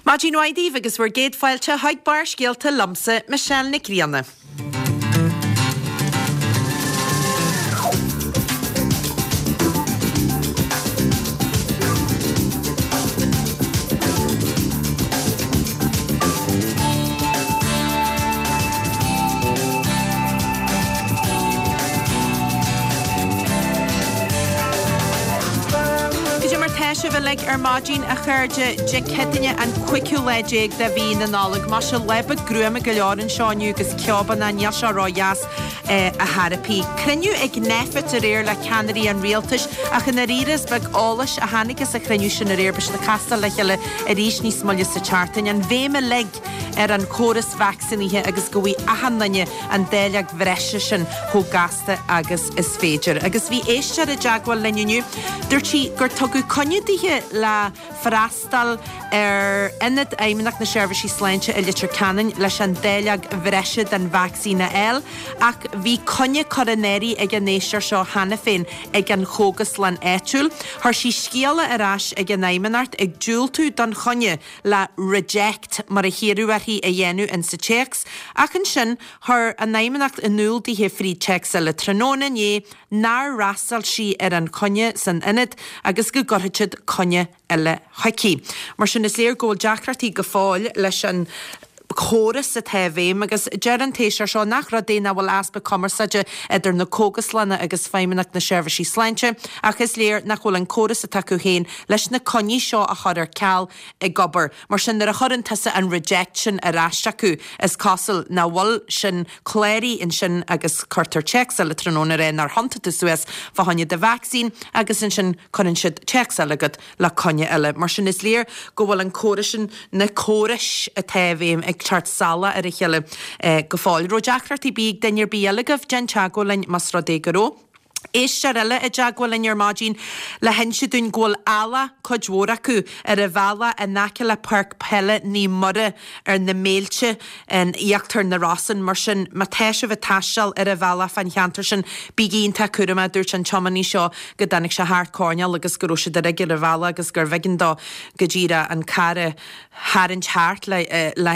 Maidin mhaith daoibh agus bhur gcéad fáilte chuig Barrscéalta liomsa, Michelle Nic Grianna. Cad é mar tá sibh uilig ar maidin, a chairde? Dé Céadaoine an cúigiú lá déag de mhí na Nollag. Maise, lá beag gruama go leor anseo inniu agus ceobanna, níl sé ródheas ar chor ar bith. Cruinniú ag Nphet aréir le ceannairí an rialtais ach i ndáiríre is beag eolais a tháinig as an chruinniú sin aréir. Beidh siad ag castáil le chéile arís níos moille sa tseachtain. An bhéim uilig ar an chóras vacsaínithe agus go bhfaighidh achan duine an dáileog bhreise sin chomh gasta agus is féidir. Agus bhí éisteoir i dteagmháil linn inniu. Dúirt sí gur tugadh coinne dithe le freastal ar Ionad Fheidhmeannacht na Seirbhísí Sláinte i Leitir Ceanainn leis an dáileog bhreise den vacsaín a fháil ach bhí coinne curtha in áirithe ag an éisteoir seo cheana féin ag an chógaslann áitiúil. Chuir sí scéala ar ais ag an Fheidhmeannacht ag diúltú don choinne le reject mar a hiarradh uirthi a dhéanamh in sa téacs ach ansin chuir an Fheidhmeannacht in iúl dithe fríd téacs eile tráthnóna inné nár fhreastail sí ar an choinne san ionad agus go gcuirfeadh siad coinne eile chuici. Mar sin is léir go bhfuil deacrachtaí go fóill leis an chóras atá i bhfeidhm agus deir an t-éisteoir seo nach rud é nach bhfuil easpa cumarsáide idir na cógaslanna agus Feidhmeannacht na Seirbhísí Sláinte ach is léir nach bhfuil an córas atá acu féin leis na coinní seo a chur ar ceal ag obair. Mar sin nuair a chuireann tusa an reject sin ar ais acu is cosúil nach bhfuil sin cláraithe ansin agus cuirtear téacs eile tráthnóna a rá nár thiontaigh tú suas fá choinne do vacsaín agus ansin cuireann siad téacs eile chugat le coinne eile. Mar sin is léir go bhfuil an córas sin, na córais atá i bhfeidhm ag teacht salach ar a chéile go fóill. Raibh deacrachtaí ar bith ag duine ar bith eile agaibh? Déan teagmháil linn más rud é go raibh. Éisteoir eile i dteagmháil linn ar maidin le hinse dúinn go bhfuil eallach, cuid mhór acu, ar an bhealach in aice le Páirc Peile Naomh Muire ar na Méilte in íochtar na Rosann. Mar sin, má tá sibh ag taisteal ar an bhealach fán cheantar sin, bígí iontach cúramach, dúirt an tiománaí seo go dtáinig sé thart coirnéal agus go raibh siad uilig ar an bhealach agus gurbh éigean dó go díreach an carr a tharraingt thart le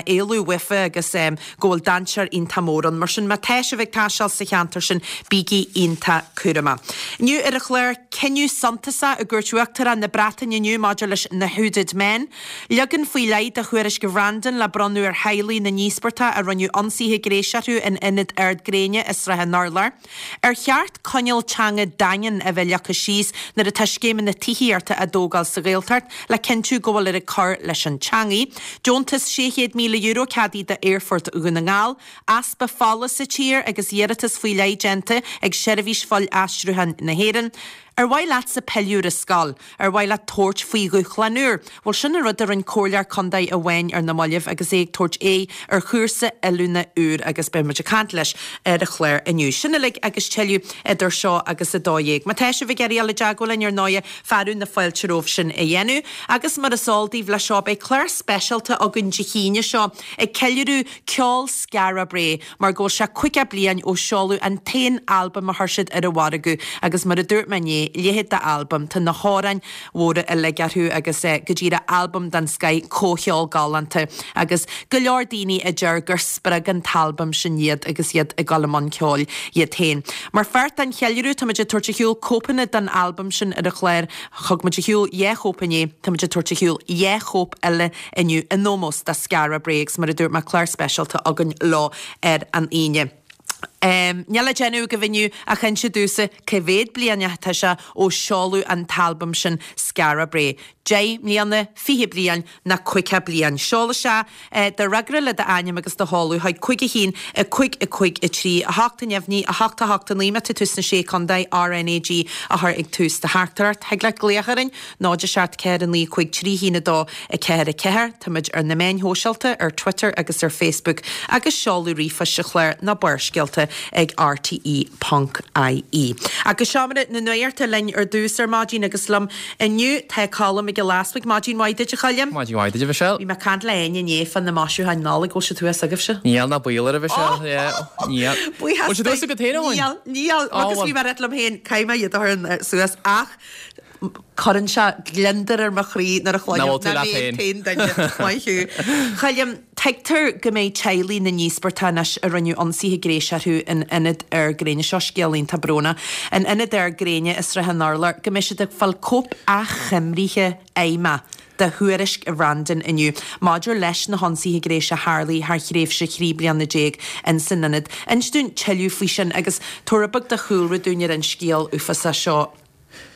éalú uafa agus go bhfuil dainséar iontach mór ann. Mar sin, má tá sibh ag taisteal sa cheantar sin, bígí iontach cúramach. Inniu ar an chlár, cinneadh suntasach i gcúirt Uachtarach na Breataine inniu maidir leis na Hooded Men. Leagan faoi leith de Thuairisc Bhrandon le bronnadh ar theaghlaigh na n-íospartach a rinneadh ionsaithe gnéis orthu in Ionad Ard Gréine i Srath an Urláir. Ar cheart coinníoll teanga daingean a bheith leagtha síos nuair atá scéimeanna tithíochta á dtógáil sa Ghaeltacht le cinntiú go bhfuiltear ag cur leis an teangaidh? Deontas €600,000 ceadaithe d'Aerfort Dhún na nGall, easpa fola sa tír agus iarratas faoi leith déanta ag Seirbhís Fuil-Aistriúcháin na hÉireann. Ar mhaith leatsa pilleadh ar an scoil? Ar mhaith leat tabhairt faoi dhúshlán úr? Bhuel, sin an rud a rinne comhairleoir contae amháin ar na mallaibh agus é ag tabhairt aghaidh ar chúrsa oiliúna úr agus beidh muid ag caint leis ar an chlár inniu. Sin uilig agus tuilleadh idir seo agus 12. Má tá sibh ag iarraidh dul i dteagmháil linn ar ndóighe, fearadh na fáilte romhaibh sin a dhéanamh. Agus mar is eol daoibh, leis seo beidh clár speisialta againn Dé hAoine seo ag ceiliúradh ceol Skara Brae. mar go bhfuil sé 50 bliain ó seoladh an t-aon albam a chuir siad ar an mhargadh agus mar a dúirt mé inné, leithéid d'albam, tá na hamhráin mhóra uilig orthu agus go díreach albam den scoith, comhcheol galánta agus go leor daoine a deir gur spreag an t-albam sin iad agus iad ag dul i mbun ceoil iad féin. Mar pháirt den cheiliúradh táimid ag tabhairt ar shiúl cóipeanna den albam sin ar an chlár, thug muid ar shiúl dhá chóip inné, táimid ag tabhairt ar shiúl dhá chóip eile inniu in ómós do Skara Brae agus mar a dúirt mé clár speisialta againn leo ar an Aoine. Níl le déanamh agaibh inniu ach inse domhsa cá mhéad bliain atá sé ó seoladh an t-albam sin Skara Brae. 10 mbliana, 20 bliain nó 50 bliain. Seol isteach do fhreagra le d'ainm agus do sheoladh chuig 5 1 5 5 3 8 neamhní 8 8 9 má tá tú sna Sé Chontae RnaG a chur ag tús do theachtaireacht. Thig leat glaoch orainn 0 7 4 9 5 3 1 2 4 4. Táimid ar na meáin shóisialta, ar Twitter agus ar Facebook, agus seoladh ríomhphoist sa chlár ná Barrscéalta ag rte ponc ie. Agus Seomra na Nuachta linn ar dtús ar maidin agus liom inniu tá Colm Mac Giolla Easbuig. Maidin mhaith duit a Choilm. Maidin mhaith duit a Mhichelle. Bhí mé ag caint le Áine inné fá na maisiúcháin Nollag, bhfuil siad thuas agaibhse? Níl ná baol air a Mhichelle, yeah, níl. Buíochas Bhfuil siad thuas agat féin, a Eoin? Níl, níl, agus bhí mé ag rá liom féin, caithfidh mé iad a chur suas ach. Cuireann sé gliondar ar mo chroí nuair a chluinim Nach bhfuil tú nach leat mé an féin. t-aon duine. Maith thú. Choilm, tuigtear go mbeidh teaghlaigh na n-íospartach anois a rinneadh ionsaithe gnéis orthu in Ionad Ard Gréine, seo scéal iontach brónach, in Ionad Ard Gréine i Srath an Urláir, go mbeidh siad ag fáil cóip achoimrithe fheidhmeach de thuairisc Bhreandan inniu maidir leis na hionsaithe gnéis a tharlaigh thar thréimhse 13 bliana ins an ionad. Inis dúinn tuilleadh faoi sin agus tabhair rud beag de chúlra dúinn ar an scéal uafásach seo.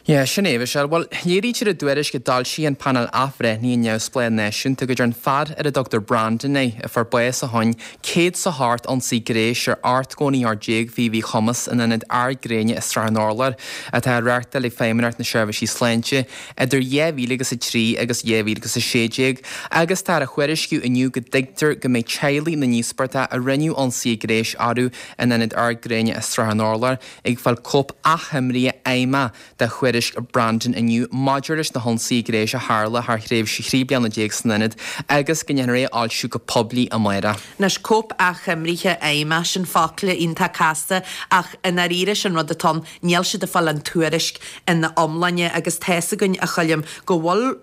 Yeah, sin é, Michelle. Bhuel, léirítear i dtuairisc a d'fhoilsigh an Painéal Athbhreithnithe Neamhspleách Náisiúnta go dtearn fear ar a dtugtar Brandon é, a fuair bás ó shoin, 108 ionsaí gnéis ar 89 othar faoi mhíchumas in Ionad Ard Gréine i Srath an Urláir, atá á reáchtáil ag Feidhmeannacht na Seirbhísí Sláinte idir 2003 agus 2016, agus táthar a thuairisciú inniu go dtuigtear go mbeidh teaghlaigh na n-íospartach a rinneadh ionsaithe gnéis orthu in Ionad Ard Gréine i Srath an Urláir ag fáil cóip achoimrithe fheidhmeach de thuairisc Brandon inniu maidir leis na hionsaithe gnéis a tharla thar thréimhse 13 bliana san ionad agus go ndéanfar é a fhoilsiú go poiblí amárach. Anois, cóip achoimrithe fheidhmeach, sin focla iontach casta ach i ndáiríre sin rud atá ann, níl siad ag fáil an tuairisc ina iomláine agus tá's againn, a Choilm, go bhfuil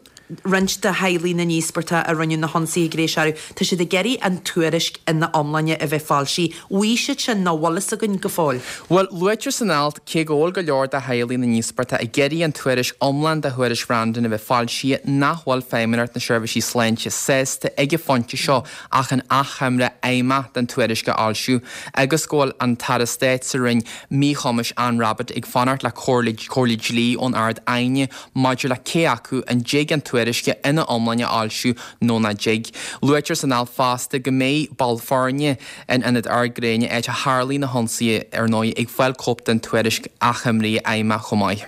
roinnt de theaghlaigh na n-íospartach a rinneadh na hionsaithe gnéis orthu, tá siad ag iarraidh an tuairisc ina iomláine a bheith foilsithe. Bhfuil siad sin nó bhfuil fhios againn go fóill? Bhuel, luaitear san alt, cé go bhfuil go leor de theaghlaigh na n-íospartach ag iarraidh an tuairisc iomlán de thuairisc Bhrandon a bheith foilsithe, nach bhfuil Feidhmeannacht na Seirbhísí Sláinte sásta ag an phointe seo ach an achoimre fheidhmeach den tuairisc a fhoilsiú agus go bhfuil an tAire Stáit sa Roinn Míchumais Anne Rabbitte ag fanacht le comhairle dlí ón Ard-Aighne maidir le cé acu an dtig an tuairisc ina iomláine a fhoilsiú nó nach dtig. Luaitear san alt fosta go mbeidh baill foirne in Ionad Ard Gréine, áit a tharlaigh na hionsaithe, ar ndóigh, ag fáil cóip den tuairisc achoimrithe fheidhmeach chomh maith.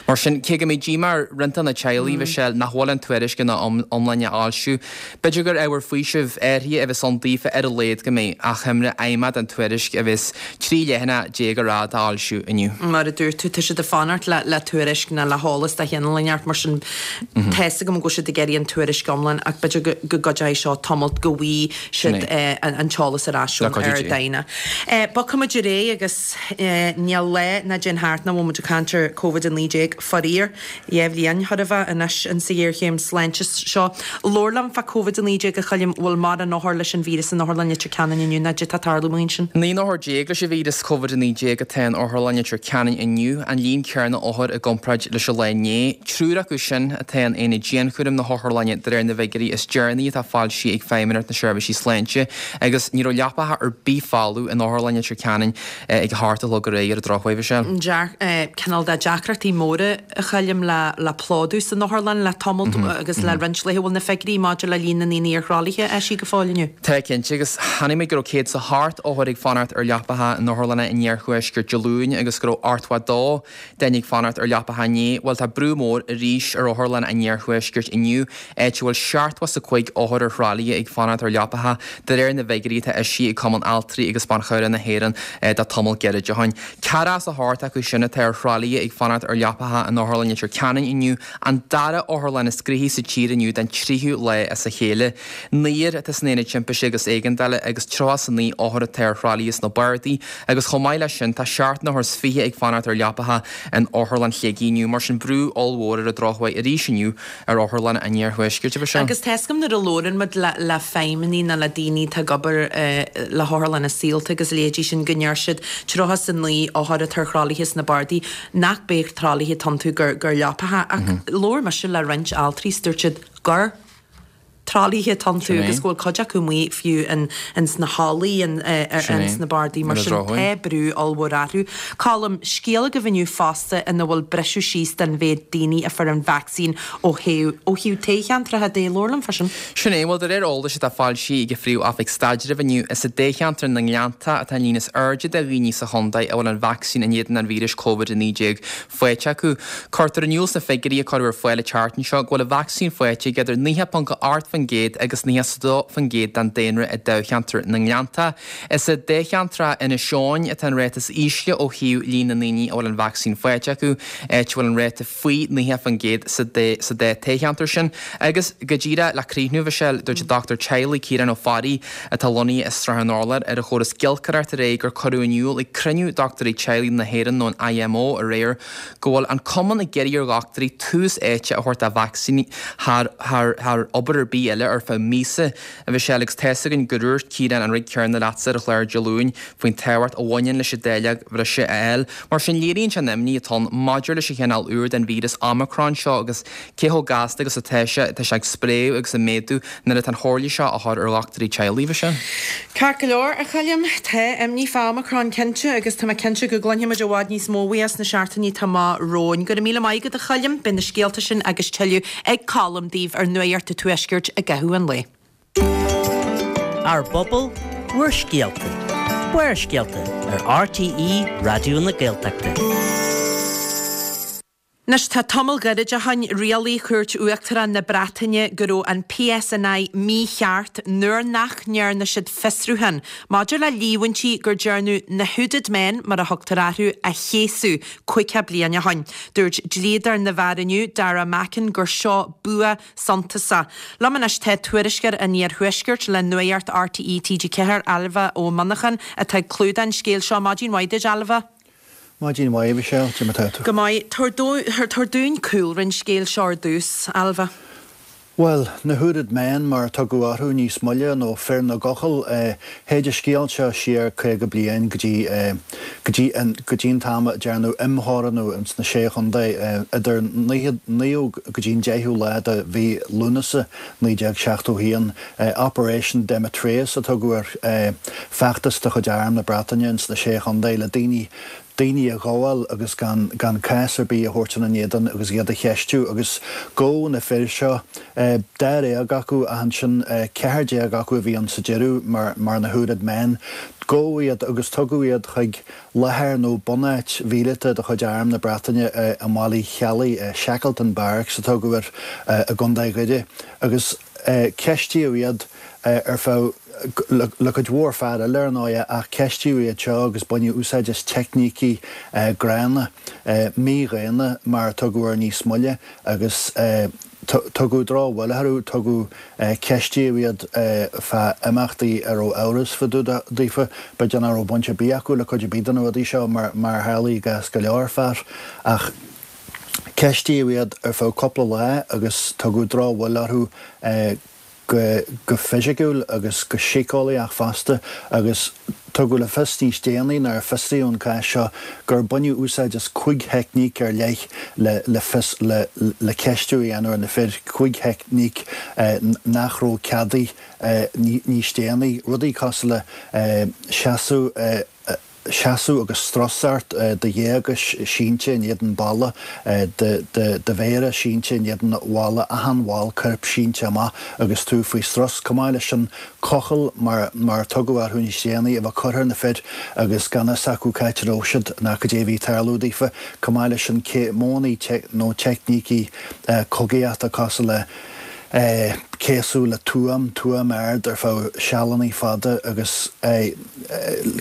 Mar sin, cé go mbeidh díomá ar roinnt de na teaghlaigh, Michelle, nach bhfuil an tuairisc ina iomláine á fhoilsiú, B'fhéidir gur ábhar faoisimh áirithe a bheas ann daofa ar a laghad go mbeidh achoimre fheidhmeach den tuairisc a bheas 13 leathanach ar fhad á fhoilsiú inniu. Mar a dúirt tú, tá siad ag fanacht le tuairisc nó le heolas de chineál inteacht, mar sin tá 'fhios agam go bhfuil siad ag iarraidh an tuairisc iomlán ach b'fhéidir go gcuideoidh seo tamalt go bhfaighidh siad an t-eolas ar ais ón Ard-Aighne. Bogfaimid ar aghaidh agus níl lá ná téann thart nach bhfuil muid ag caint ar Covid-19, faraor. 2 bhliain chóir a bheith anois in sa ghéarchéim sláinte seo. Labhair liom fá Covid-19 a Choilm, bhfuil mórán othar leis an víreas in Otharlann Leitir Ceanainn inniu nó caidé tá ag tarlú ansin? 19 n-othar leis an víreas Covid-19 atá in Otharlann Leitir Ceanainn inniu, an líon céanna othar i gcomparáid leis an lá inné. Triúr acu sin atá in aonad dianchúraim na hotharlainne de réir na bhfigiúirí is deireanaí atá foilsithe ag Feidhmeannacht na Seirbhísí Sláinte agus ní raibh leapacha ar bith folamh in Otharlann Leitir Ceanainn ag a hocht a chlog aréir ar an drochuair, Michelle. Cineál de deacrachtaí móra a Choilm le plódú san otharlann le tamalt agus le roinnt laetha. Bhfuil na figiúirí maidir le líon na ndaoine ar thralaithe eisithe go fóill inniu? Tá, cinnte, agus chonaic mé go raibh 108 othar ag fanacht ar leapacha in otharlanna an iarthuaiscirt Dé Luain agus go raibh 82 duine ag fanacht ar leapacha inné. Bhuel, tá brú mór arís ar otharlanna an iarthuaiscirt inniu, áit a bhfuil 75 othar ar thralaithe ag fanacht ar leapacha, de réir na bhfigiúirí atá eisithe ag Cumann Altraí agus Ban Chabhrach na hÉireann de tamall gairid ó shin. Ceathracha is a hocht acu sin atá ar thralaithe ag fanacht ar leapacha in Otharlann Leitir Ceanainn inniu, an dara otharlann is gnoithí sa tír inniu den tríú lá as a chéile. Naonúr atá san Aonad Timpiste agus Éigeandála agus 39 othar atá ar thralaithe sna bardaí agus chomh maith leis sin tá seacht n-othar is fiche ag fanacht ar leapacha in Otharlann Shligigh inniu. Mar sin brú ollmhór ar an drochuair arís inniu ar otharlanna an iarthuaiscirt, a Mhichelle. Agus tá 'fhios agam nuair a labhrann muid le feidhmeannaigh nó le daoine atá ag obair le hotharlanna saolta agus a leithéidí sin go ndeir siad 39 othar atá ar thralaithe sna bardaí nach b'é tralaithe atá iontu gur leapacha ach labhair mise le roinnt altraí is dúirt siad gur tralaithe atá iontu agus go bhfuil cuid acu amuigh fiú in sna hallaí in sna bardaí mar sin tá brú ollmhór orthu. Colm, scéal agaibh inniu fosta ina bhfuil briseadh síos den mhéid daoine a fuair an vacsaín ó thaobh ó thaobh toghcheantracha de, labhair liom fá sin. Sin é, bhuel de réir eolais atá foilsithe ag an Phríomh-Oifig Staidrimh inniu, is i dtoghcheantar na nGleannta atá an líon is airde de dhaoine sa chontae a bhfuil an vacsaín in éadan an víris Covid-19 faighte acu. Cuirtear in iúl sna figiúirí a cuireadh ar fáil an tseachtain seo go bhfuil an vacsaín faighte ag idir 90.8% 90% agus 92% den daonra i dtoghcheantar na nGleannta. Is i dtoghcheantar Inis Eoghain atá an ráta is ísle ó thaobh líon na ndaoine a bhfuil an vacsaín faighte acu, áit a bhfuil an ráta faoi 90% sa dá toghcheantar sin. Agus go díreach le críochnú, a Mhichelle, dúirt an dochtúir teaghlaigh Ciarán Ó Fearraigh, atá lonnaithe i Srath an Urláir, ar an chóras giolcaireachta aréir gur cuireadh in iúl ag cruinniú Dochtúirí Teaghlaigh na hÉireann nó an IMO aréir go bhfuil an cumann ag iarraidh ar dhochtúirí tús áite a thabhairt do vacsaíní thar thar obair ar bith eile ar feadh míosa. A Mhichelle, agus tá's againn gur dhúirt Ciarán an rud céanna leatsa ar an chlár Dé Luain faoin tábhacht a bhaineann leis an dáileog bhreise a fháil. Mar sin, léiríonn sé an imní atá ann maidir leis an chineál úr den víreas Omicron seo agus cé chomh gasta agus atá sé, tá sé ag spréadh agus ag méadú nuair atá an chomhairle seo á chur ar dhochtúirí teaghlaigh, a Mhichelle. Ceart go leor, a Choilm. Tá imní fá Omicron cinnte agus tá mé cinnte go gcluinfidh muid i bhfad níos mó uaidh sna seachtainí atá amach romhainn. Go raibh míle maith agat, a Choilm. Beidh na scéalta sin agus tuilleadh ag Colm daoibh ar Nuacht an Tuaiscirt i gcaitheamh an lae. Ár bpobal, bhur scéalta. Barrscéalta ar RTÉ Raidió na Gaeltachta. Anois tá tamall gairid ó shoin, rialaigh Chúirt Uachtarach na Breataine go raibh an PSNI mícheart nuair nach ndearna siad fiosrúchán maidir le líomhaintí gur dearnadh na 'hooded men', mar a thugtar orthu, a chéasadh 50 bliain ó shoin. Dúirt dlíodóir na bhfear inniu, Dara Mackin, gur seo bua suntasach. Liom anois tá tuairisceoir an Iarthuaiscirt le Nuacht RTÉ TG4, Ailbhe Ó Monacháin, atá ag clúdach an scéil seo. Maidin mhaith duit, Ailbhe. Maidin mhaith, a Mhichelle. Cad é mar atá tú? Go maith. Tabhair dúinn cúlra an scéil seo ar dtús, Ailbhe. Bhuel, na Hooded Men, mar a tugadh orthu níos moille, nó fir na gcochall, théid an scéal seo siar 50 bliain go dtí, go dtí an, go dtí an t-am a dearnadh imtheorannú ins na Sé Chontae idir naoú go dtí an deichiú lá de mhí Lúnasa 1971. Operation Demetrius a tugadh air, feachtas de chuid Arm na Breataine ins na Sé Chontae le daoine, daoine a ghabháil agus gan, gan cás ar bith a thabhairt ina n-éadan agus iad a cheistiú. Agus gabhadh na fir seo, dáréag acu ach ansin 14 acu a bhí ann sa deireadh mar, mar na Hooded Men. Gabhadh iad agus tugadh iad chuig láthair nó bunáit mhíleata de chuid Arm na Breataine i mBaile Uí Cheallaigh, Shackleton Barracks a tugadh air, i gContae Dhoire. Agus ceistíodh iad ar feadh, le cuid mhór fear eile ar ndóigh, ach ceistíodh iad seo agus baineadh úsáid as teicnící gránna, mídhaonna mar a tugadh air níos moille, agus tugadh drochbhuille orthu, tugadh, ceistíodh iad fá imeachtaí a raibh amhras fá dtaobh daofa, b'fhéidir nach raibh baint ar bith acu le cuid ar bith de na rudaí seo, mar a tharlaigh i gcás go leor fear, ach. Ceistíodh iad ar feadh cúpla lá agus tugadh drochbhuille orthu go fisiciúil agus go síceolaíoch fosta agus tugadh le fios níos déanaí nuair a fiosraíodh an cás seo gur baineadh úsáid as chúig theicníc ar leith le fios le ceistiú a dhéanamh ar na fir, chúig theicníc nach raibh ceadaithe níos déanaí, rudaí cosúil le seasamh seasamh agus strus ort, do ghéaga sínte in éadan balla, do mhéara sínte in éadan bhalla, achan bhall coirp sínte amach agus tú faoi strus. Chomh maith leis sin, cochall, mar a tugadh orthu níos déanaí, a bheith curtha ar na fir agus gan fhios acu c'áit a raibh siad ná cad é a bhí ag tarlú daofa. Chomh maith leis sin, modhanna nó teicnící cogaíochta cosúil le. céasadh le tuaim, tuaim ard ar feadh sealanna fada agus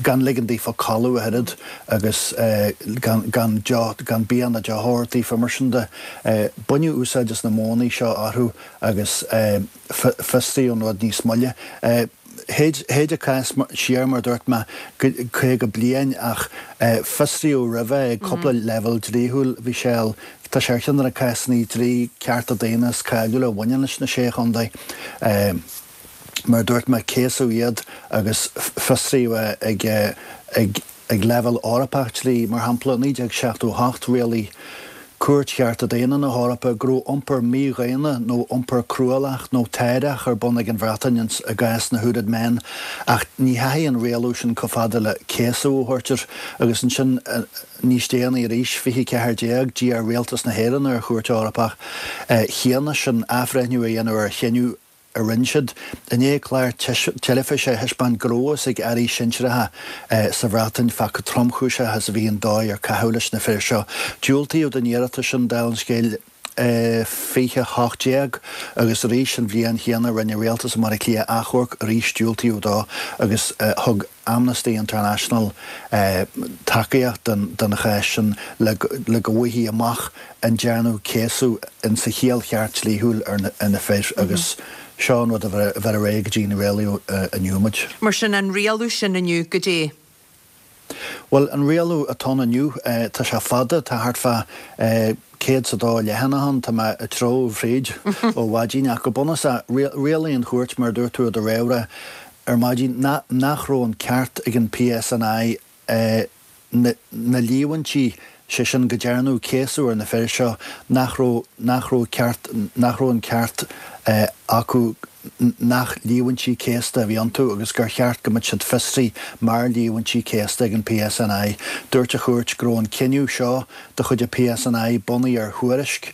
gan ligean daofa codladh ach oiread agus gan, gan deoch, gan bia ná deoch a thabhairt daofa, mar sin de. Baineadh úsáid as na modhanna seo orthu agus fiosraíodh an rud níos moille. Théid an cás siar, mar a dúirt mé, 50 bliain ach fiosraíodh roimhe ag cúpla leibhéal dlíthiúil. Bhí sé, tá sé ar cheann de na cásanna dlí cearta daonna is cáiliúla a bhaineann leis na Sé Chontae. Mar a dúirt mé, céasadh iad agus fiosraíodh é ag ag Ag leibhéal Eorpach dlí, mar shampla, 1978, rialaigh Cúirt Chearta Daonna na hEorpa go raibh iompar mídhaonna nó iompar cruálach nó táireach ar bun ag an Bhreatain i gcás na Hooded Men ach ní theachaigh an rialú sin chomh fada le céasadh a thabhairt air agus ansin níos déanaí arís, 2014, d'iarr Rialtas na hÉireann ar an Chúirt Eorpach chéanna sin athbhreithniú a dhéanamh ar a chinneadh a rinne siad, i ndiaidh clár teilifíse a thaispeáint go raibh a fhios ag airí sinsearacha sa Bhreatain fá chomh tromchúiseach is a bhí an dóigh ar caitheadh leis na fir seo. Diúltaíodh don iarratas sin, dála an scéil. 2018 agus arís an bhliain chéanna rinne Rialtas i mBaile Átha Cliath achomharc, arís diúltaíodh dó agus thug Amnesty International tacaíocht don chás sin le go bhfaighfí amach an ndearnadh céasadh in sa chiall cheart dlíthiúil ar na fir agus seo an rud a bheir ar aghaidh go dtí an rialú inniu muid. Mar sin, an rialú sin inniu, goidé? Bhuel, an rialú atá ann inniu, tá sé fada, tá thart fá 102 leathanach ann, tá mé ag treabhadh fríd ó mhaidin, ach go bunúsach, rialaigh an chúirt, mar a dúirt tú i do réamhrá ar maidin, nach raibh an ceart ag an PSNI na líomhaintí, sé sin go dearnadh céasadh ar na fir seo, nach raibh, nach raibh ceart, nach raibh an ceart acu nach líomhaintí céasta a bhí iontu agus gur cheart go mbeadh siad fiosraithe mar líomhaintí céasta ag an PSNI. Dúirt an chúirt go raibh an cinneadh seo de chuid an PSNI bunaithe ar thuairisc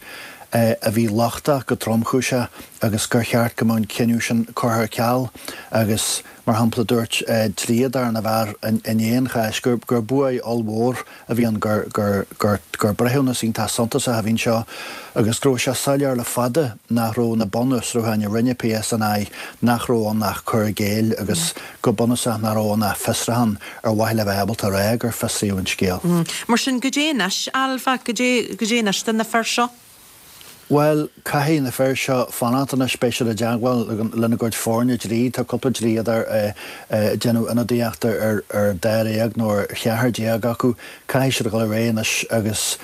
a bhí lochtach go tromchúiseach agus gur cheart go mbeadh an cinneadh sin curtha ar ceal agus Mar shampla, dúirt dlíodóir na bhfear i ndiaidh an cháis gur buaidh ollmhór a bhí ann, gur breithiúnas iontach suntasach a bhí anseo agus go raibh sé soiléir le fada nach raibh na bunfhiosrúcháin a rinne PSNI, nach raibh ann ach cur i gcéill agus go bunúsach nach raibh ann ach fiosrúchán ar mhaithe le bheith ábalta a rá gur fiosraíodh an scéal. Mar sin, goidé anois, Ailbhe, goidé anois do na fir seo? Bhuel, caithfidh na fir seo fanacht anois, beidh siad i dteagmháil lena gcuid foirne dlí, tá cúpla dlíodóir ag déanamh ionadaíochta ar dháréag nó ar cheathrar déag acu, caithfidh siad a dhul ar aghaidh anois agus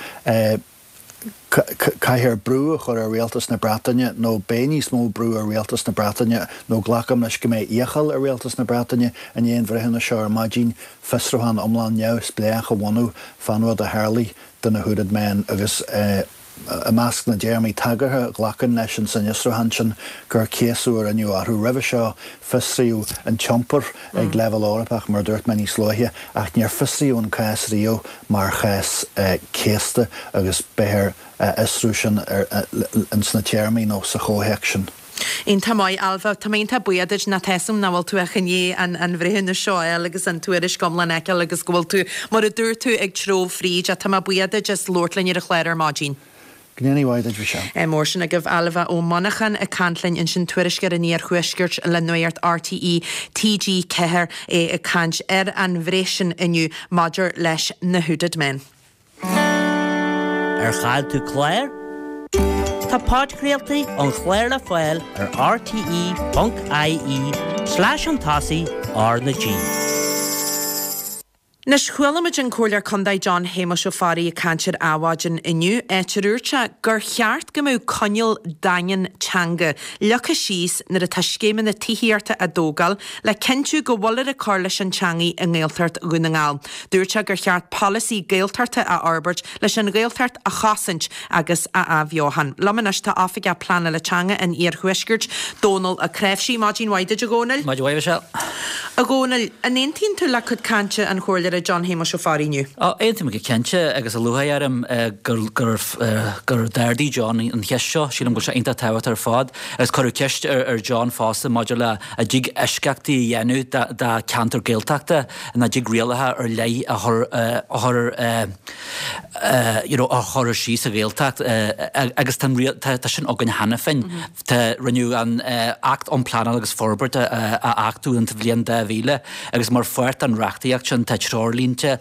caithfear brú a chur ar Rialtas na Breataine nó beidh níos mó brú ar Rialtas na Breataine nó glacaim leis go mbeidh iachall ar Rialtas na Breataine i ndiaidh an bhreithiúnais seo ar maidin fiosrúchán iomlán neamhspléach a bhunú fán rud a tharlaigh do na Hooded Men agus i measc na dtéarmaí tagartha a ghlacann leis an san fhiosrúchán sin gur céasadh a rinneadh orthu. Roimhe seo fiosraíodh an t-iompar ag leibhéal Eorpach, mar a dúirt mé níos luaithe, ach níor fiosraíodh an cás riamh mar chás céasta agus beifear á fhiosrú sin ins na téarmaí nó sa chomhthéacs sin. Iontach maith, Ailbhe. Tá mé iontach buíoch duit nó tá 'fhios a'm nach bhfuil tú ach i ndiaidh an an bhreithiúnas seo a fháil agus an tuairisc iomlán a fheiceáil agus go bhfuil tú, mar a dúirt tú, ag treabhadh fríd. Ach tá mé buíoch duit as labhairt linn ar an chlár ar maidin. Go ndéanaí mhaith duit, Michelle. Mór sin agaibh, Ailbhe Ó Monacháin ag caint linn ansin, tuairisceoir an Iarthuaiscirt le Nuacht RTÉ TG4, é ag caint ar an bhreith sin inniu maidir leis na Hooded Men. Ar chaill tú clár? Tá podchraoltaí an chláir le fáil ar rte.ie slash chun tosaigh R na G. Anois, chuala muid an Comhairleoir Contae John Shéamuis Ó Fearraigh ag caint ar Adhmhaidin inniu, áit ar dhúirt sé gur cheart go mbeadh coinníoll daingean teanga leagtha síos nuair atá scéimeanna tithíochta á dtógáil le cinntiú go bhfuiltear ag cur leis an teangaidh i nGaeltacht Dhún na nGall. Dúirt sé gur cheart polasaí Gaeltachta a fhorbairt leis an Ghaeltacht a chosaint agus a athbheochan. Liom anois tá Oifigeach Pleanála Teanga an Iarthuaiscirt, Dónal Ó Cnáimhsí. Maidin mhaith duit, a Dhónaill. Maidin mhaith, a Mhichelle. A Dhónaill, an aontaíonn tú le cuid cainte an Chomhairleora John Shéamuis Ó Fearraigh inniu? Ó, aontaím go cinnte, agus lúcháir orm gur gur gur d'ardaigh John an cheist seo. Sílim go bhfuil sé iontach tábhachtach ar fad. Agus cuireadh ceist ar John fosta maidir le an dtig eisceachtaí a dhéanamh do cheantar Gaeltachta. An dtig rialacha ar leith a chur a chur you know a chur síos sa Ghaeltacht agus tá tá sin againn cheana féin. Tá rinneadh an Acht um Pleanáil agus Forbairt a achtú in sa bhliain 2000 agus mar pháirt den reachtaíocht sin tá treoirlínte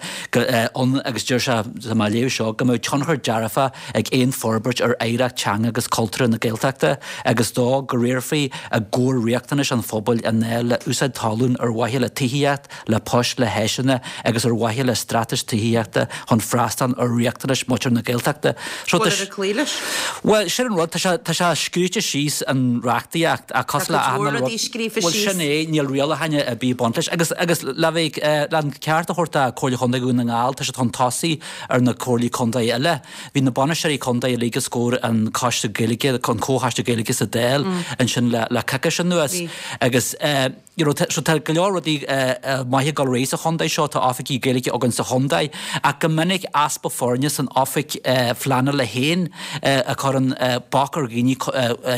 ann agus deir sé tá mé ag léamh seo go mbeadh tionchar dearfach ag aon forbairt ar oidhreacht teanga agus cultúrtha na Gaeltachta agus dó go riarfaí i gcomhair riachtanais an phobail i ndáil le úsáid talún ar mhaithe le tithíocht, le poist, le háiseanna agus ar mhaithe le straitéis tithíochta chun freastal ar riachtanais muintir na Gaeltachta. So tá Bhfuil ar cloí leis? Bhuel, sin an rud, tá sé, tá sé scríte síos an reachtaíocht ach cosúil le Tá cuid mhór rudaí scríofa Bhuel, síos. sin é, níl rialacháin ar bith ag baint leis. Agus, agus le bheith, le an ceart a thabhairt do Comhairle Chontae Dhún na nGall, tá siad chun tosaigh ar na comhairlí contae eile. Bhí na bainisteoirí contae uilig os comhair an Coiste Gaeilge, an Comhchoiste Gaeilge sa Dáil ansin le coicís anuas agus you know so tá go leor rudaí maithe ag dul ar aghaidh sa chontae seo, tá oifigí Gaeilge againn sa chontae ach go minic easpa foirne san oifig phleanála féin a chuireann bac ar dhaoine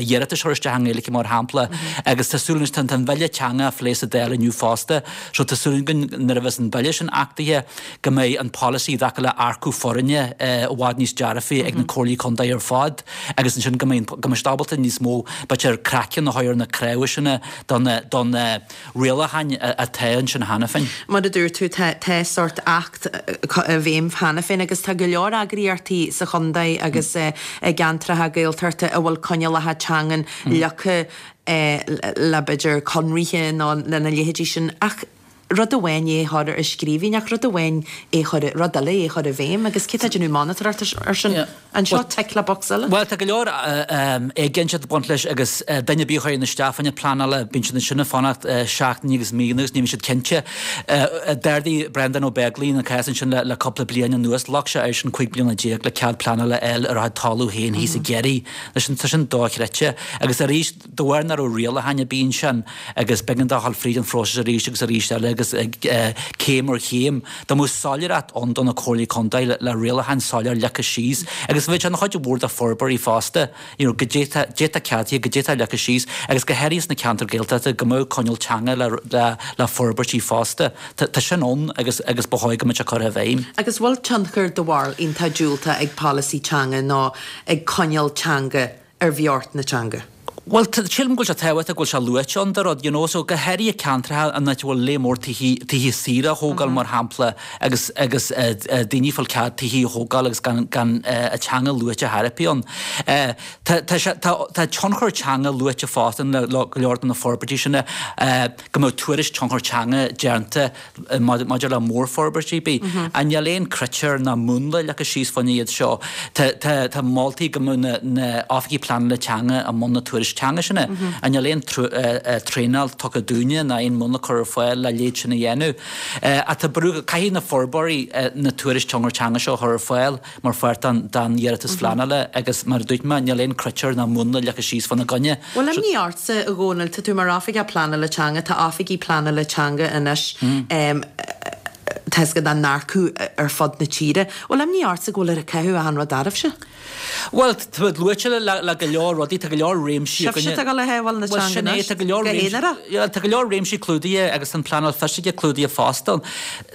iarratais a chur isteach i nGaeilge mar shampla agus tá súil anois tá an bhille teanga á phlé sa Dáil inniu fosta. fosta. So tá súil againn nuair a bheas an bille sin achtaithe go mbeidh an polasaí i dtaca le earcú foirne i bhfad níos dearfaí ag na comhairlí contae ar fad agus ansin go mbeidh go mbeidh siad ábalta níos mó b'fhéidir craiceann a chur ar na cnámha sin do na do na rialacháin atá ansin cheana féin. Mar a dúirt tú, tá tá sórt acht i bhfeidhm cheana féin agus tá go leor eagraíochtaí sa chontae agus i gceantracha Gaeltachta a bhfuil coinníollacha teangan leagtha le b'fhéidir conraithe nó lena leithéidí sin ach rud amháin é a chur i scríbhinn ach rud amháin é chur, rud eile é a chur i bhfeidhm agus cé tá ag déanamh monatóireacht ar sin? An seo tick le box eile? Bhuel tá go leor éiginnteacht ag baint leis agus duine ar bith a chuireann isteach fá choinne pleanála bíonn siad ansin ag fanacht seachtainí agus míonna agus ní bhíonn siad cinnte. D'ardaigh Breandán Ó Beaglaoich an cás ansin le cúpla bliain anuas, ghlac sé airsean 15 bliana le cead pleanála a fháil ar a chuid talamh féin thíos i gCiarraí. Anois tá sin dochreidte. Agus arís, de bharr nach raibh rialacháin ar bith ansin agus b'éigean dó a dhul fríd an phróiseas arís agus arís eile agus céim ar chéim, dá mbeadh soiléireacht ann do na comhairlí contae le rialacháin soiléir leagtha síos agus bheadh sé ina chuid mhór de forbróirí fosta, you know, goidé tá, goidé tá ceadaithe, goidé tá leagtha síos agus go háirithe sna ceantair Gaeltachta go mbeadh coinníoll teanga le, le, le forbairtí fosta. Tá, tá sin ann agus, agus ba chóir go mbeadh sé curtha i bhfeidhm. Agus bhfuil tionchar do bharúil iontach diúltach ag polasaí teanga nó ag coinníoll teanga ar bheocht na teanga? Bhuel, sílim go bhfuil sé tábhachtach go bhfuil sé luaite ann do rud, you know, so go háirithe ceantracha an áit a bhfuil lear mór tithe, tithe saoire á thógáil mar shampla agus, agus daoine ag fáil cead tithe a thógáil agus gan, gan an teanga luaite chor ar bith ann. Tá, tá sé, tá, tá tionchar teanga luaite fosta le go leor de na forbairtí sin, go mbeadh tuairisc tionchar teanga déanta maidir le mórfhorbairtí ar bith. Ach níl aon critéir ná múnla leagtha síos fá choinne iad seo. Tá moltaí go mbeadh na oifigigh pleanála teanga i mbun na tuairisc teanga sin. Ach níl aon traenáil tugtha dúinne ná aon múnla curtha ar fáil le leithéid sin a dhéanamh. Ach tá brú, caithfidh na forbróirí na tuairisc tionchar teanga seo a chur ar fáil. mar pháirt den iarratas phleanála agus mar a dúirt mé, níl aon critéir ná múnla leagtha síos fána gcoinne. Bhfuil imní ortsa, a Dhónaill, tá tú mar oifigeach pleanála teanga, tá oifigigh pleanála teanga anois, tá 'fhios agat á n-earcú ar fud na tíre. Bhfuil imní ortsa go bhfuil ag caitheamh achan rud oraibhse? Bhuel, tá luaite le go leor rudaí, tá go leor réimsí againne. Sibhse atá ag dul a shábháil na teanga anois, go haonarach. Tá go leor réimsí clúdaithe agus tá an pleanáil fisiceach clúdaithe fosta.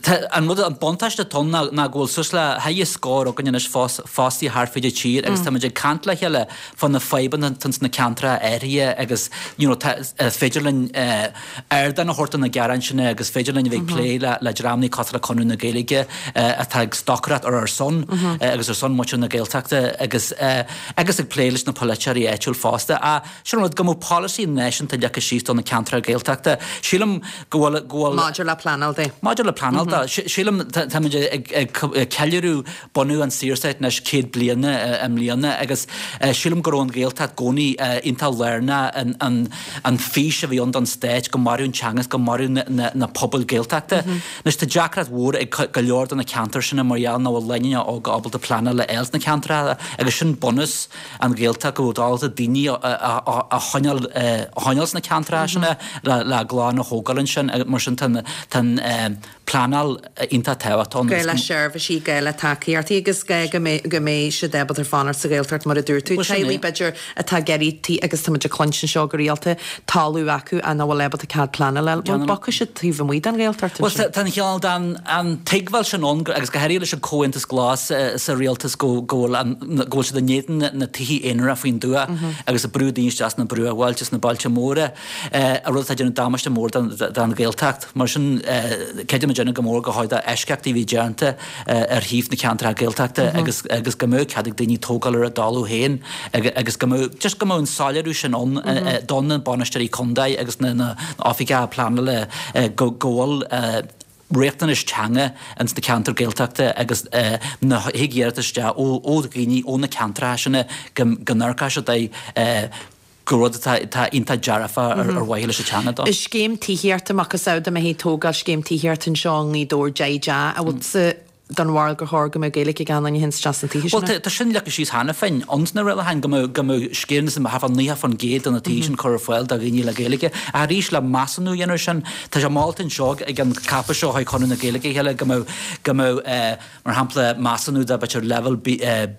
Tá an rud, an buntáiste atá ann ná ná go bhfuil suas le haghaidh scór againn anois fostaithe thart fríd an tír agus táimid ag caint le chéile fá na fadhbanna atá ins na ceantracha áirithe agus you know tá, is féidir linn ardán a thabhairt do na gearáin sin agus féidir linn a bheith ag plé le le dreamanna cosúil le Conradh na Gaeilge atá ag stocaireacht ar ár son agus ar son muintir na Gaeltachta agus agus ag plé leis na polaiteoirí áitiúil fosta. Sin an rud, go mbeadh polasaí náisiúnta leagtha síos do na ceantracha Gaeltachta. Sílim go bhfuil, go bhfuil. Maidir le pleanáil de. Maidir le pleanáil de. Sílim, táimid ag, ag ceiliúradh bunú an Saorstáit anois 100 bliana i mbliana agus sílim go raibh an Ghaeltacht i gcónaí iontach lárnach in an, an fís a bhí ann don stát, go mairfeadh an teanga is go mairfeadh na, na pobail Gaeltachta. Anois tá deacracht mhór ag go leor de na ceantair sin mar gheall nach bhfuil lánúineacha óga ábalta pleanáil a fháil sna ceantracha agus sin bunús an Ghaeltacht go bhfuil ábalta daoine a choinneáil sna ceantracha sin le a gclann a thógáil ansin mar sin tá an pleanáil iontach tábhachtach ann. Gá le seirbhísí, gá le tacaíochtaí agus gá go mbeidh siad ábalta fanacht sa Ghaeltacht mar a dúirt tú. Teaghlaigh b'fhéidir atá ag iarraidh tí agus tá muid ag cluinstin seo go rialta, talamh acu ach nach bhfuil ábalta cead pleanála a fháil. Bhuel bogfaidh siad taobh amuigh den Ghaeltacht ansin. Bhuel tá an cineál den an tuigbheáil sin ann agus go háirithe leis an Comhaontas Glas sa rialtas go bhfuil an go bhfuil siad in éadan na tithe aonaracha faoin dtuath agus ag brú daoine isteach sna bruachbhailte sna bailte móra, an rud atá ag déanamh damáiste mór don Ghaeltacht. Mar sin creidim muidinne go mór gur chóir d'eisceachtaí a bheith déanta ar thaobh na ceantracha Gaeltachta agus agus go mbeadh cead ag daoine tógáil ar a dtalamh féin agus go mbeadh just go mbeadh an soiléiriú sin ann do na bainisteoirí contae agus na oifigigh pleanála go go bhfuil riachtanais teanga ins na ceantair Gaeltachta agus nuair a thig iarratas isteach ó dhaoine ó na ceantracha sin go n-amharcfaidh siad air gur rud atá iontach dearfach ar mhaithe leis an teanga dó. Scéim tithíochta, macasamhail dá mbeifí ag tógáil scéim tithíochta anseo i nGaoth Dobhair, deich dteach, an bhfuil. den bharúil gur chóir go mbeadh Gaeilge ag gach aon duine a théann isteach sna tithe sin? Bhuel, tá sin leagtha síos cheana féin ins na rialacháin go mbeadh, go mbeadh sciar thart fá 90% de na tithe sin curtha ar fáil do dhaoine le Gaeilge. Ach arís, le measúnú a dhéanamh ar sin, tá sé molta anseo ag an ceapadh seo chuig Conradh na Gaeilge a chéile go mbeadh, go mbeadh, mar shampla, measúnú de b'fhéidir leibhéal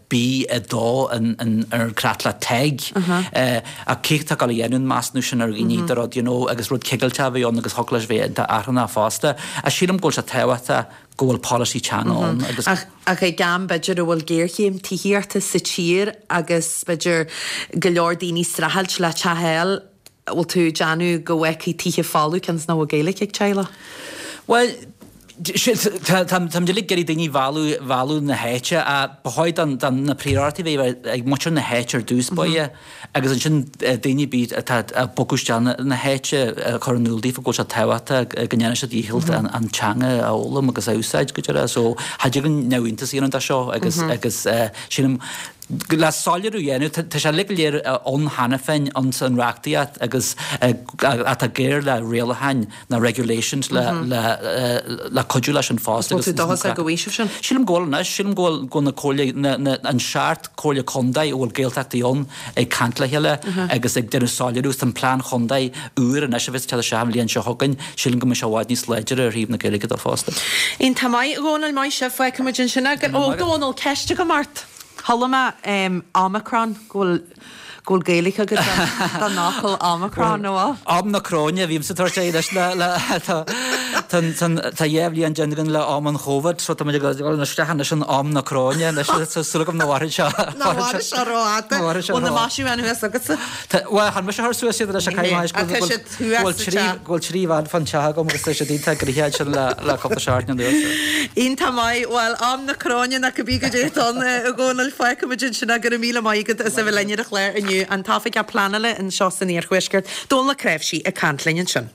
B2 ar an creatlach TEG. Ach cé atá ag dul a dhéanamh an measúnú sin ar dhaoine de rud, you know, agus rud cigilteach a bheith ann agus thiocfadh leis bheith iontach achrannach fosta. Ach sílim go bhfuil sé tábhachtach go bhfuil polasaí teanga ann agus. Ach ag am b'fhéidir a bhfuil géarchéim tithíochta sa tír agus b'fhéidir go leor daoine ag streachailt le teach a fháil, bhfuil tú ag déanamh go bhfágfaí tithe folamh cionn is nach bhfuil Gaeilge ag teaghlach? Bhuel, táimid uilig ag iarraidh daoine a mhealladh na háite ach ba chóir don na príorachtaí a bheith ag muintir na háite ar dtús báire. Agus ansin daoine ar bith atá ag bogadh isteach na háite a chur in iúl daofa go bhfuil sé tábhachtach go ndéanfaidh siad dícheall an teanga a fhoghlaim agus a úsáid go deireadh. So cha dtig linn neamhiontas a dhéanamh de seo agus agus sílim le soiléiriú a dhéanamh tá sé uilig go léir ann cheana féin ins an reachtaíocht agus atá géar le rialacháin na regulations le le le cuidiú leis an fosta. Bhfuil tú dóchasach go bhfaighidh sibh sin? Sílim go bhfuil anois, sílim go bhfuil go bhfuil na comhairle na na an seacht comhairle contae a bhfuil Gaeltachtaí ann ag caint le chéile agus ag déanamh soiléiriú agus tá an plean chontae úr anois a bheas ag teacht isteach an bhliain seo chugainn, sílim go mbeidh sé i bhfad níos láidre ar thaobh na Gaeilge de fosta. Iontach maith, a Dhónaill, maith sibh, fágfaidh muid ansin é. Ó, Dónall, ceist agam ort. Chuala mé Omicron, go bhfuil go bhfuil Gaeilge agat don fhocal Omicron, nó bhfuil? Am na Cróine a bhímse ag tabhairt air anois le le tá tá tá dhá bhliain déanta againn le am an Chóvid so tá muid ag dul isteach anois in am na Cróine anois tá súil agam nach mhairfidh sé Nach mhairfidh sé rófhada. Nach mhairfidh sé Bhfuil na maisiúcháin thuas agatsa? Tá bhuel chan mise a chuir suas iad anois ach caithfidh mé Tá siad thuas sa teach. Go bhfuil trí bhean fán teach agam agus tá siad iontach gnoitheach ansin le le cúpla seachtain anuas. Iontach maith. Bhuel, am na Cróine nó cibé goidé atá ann, a Dhónaill, fágfaidh muid ansin é. Go raibh míle maith agat as a bheith linn ar an chlár inniu. An tOifigeach Pleanála anseo san Iarthuaisceart, Dónal Ó Cnáimhsí, ag caint linn ansin.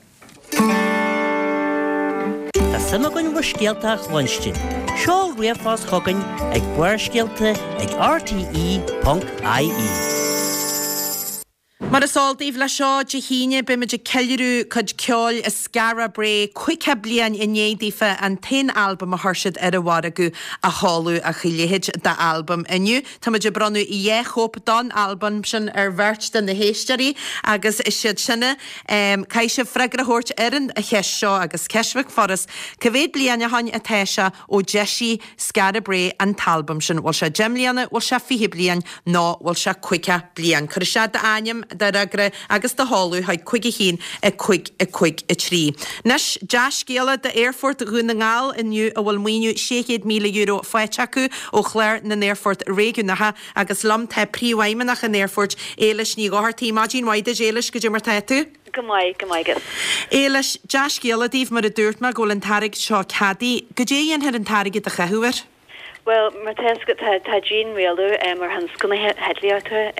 Tá suim againn bhur scéalta a chluinstin. Seol ríomhphost chugainn ag barrscéalta ag rte.ie. Mar is eol daoibh, leis seo Dé hAoine beimid ag ceiliúradh cuid ceoil Skara Brae, 50 bliain i ndiaidh daofa an t-aon albam a chuir siad ar an mhargadh a sheoladh ach a leithéid d'albam. Inniu táimid ag bronnadh dhá chóip don albam sin ar bheirt de na héisteoirí agus is iad sin a caithfidh sibh freagra a thabhairt ar an cheist seo agus ceist bheag furast, cá mhéad bliain ó shoin atá sé ó d'eisigh Skara Brae an t-albam sin. Bhfuil sé 10 mbliana, bhfuil sé 20 bliain nó bhfuil sé 50 bliain? Cuir isteach d'ainm, do fhreagra agus do sheoladh chuig 5 1 5 5 3. Anois, dea-scéala d'Aerfort Dhún na nGall inniu a bhfuil maoiniú €600,000 faighte acu ó Chlár na nAerfort Réigiúnacha agus liom tá Príomhfheidhmeannach an Aerfoirt, Éilis Ní Dhochartaigh. Maidin mhaith duit, Éilis, goidé mar tá tú? Go maith, go maith agat. Éilis, dea-scéala daoibh, mar a dúirt mé, go bhfuil an t-airgead seo ceadaithe. Goidé a dhéanfar an t-airgead a chaitheamh air? Bhuel, mar tá fhios agat, tá, tá dianrialú ar thionscal na heitlíochta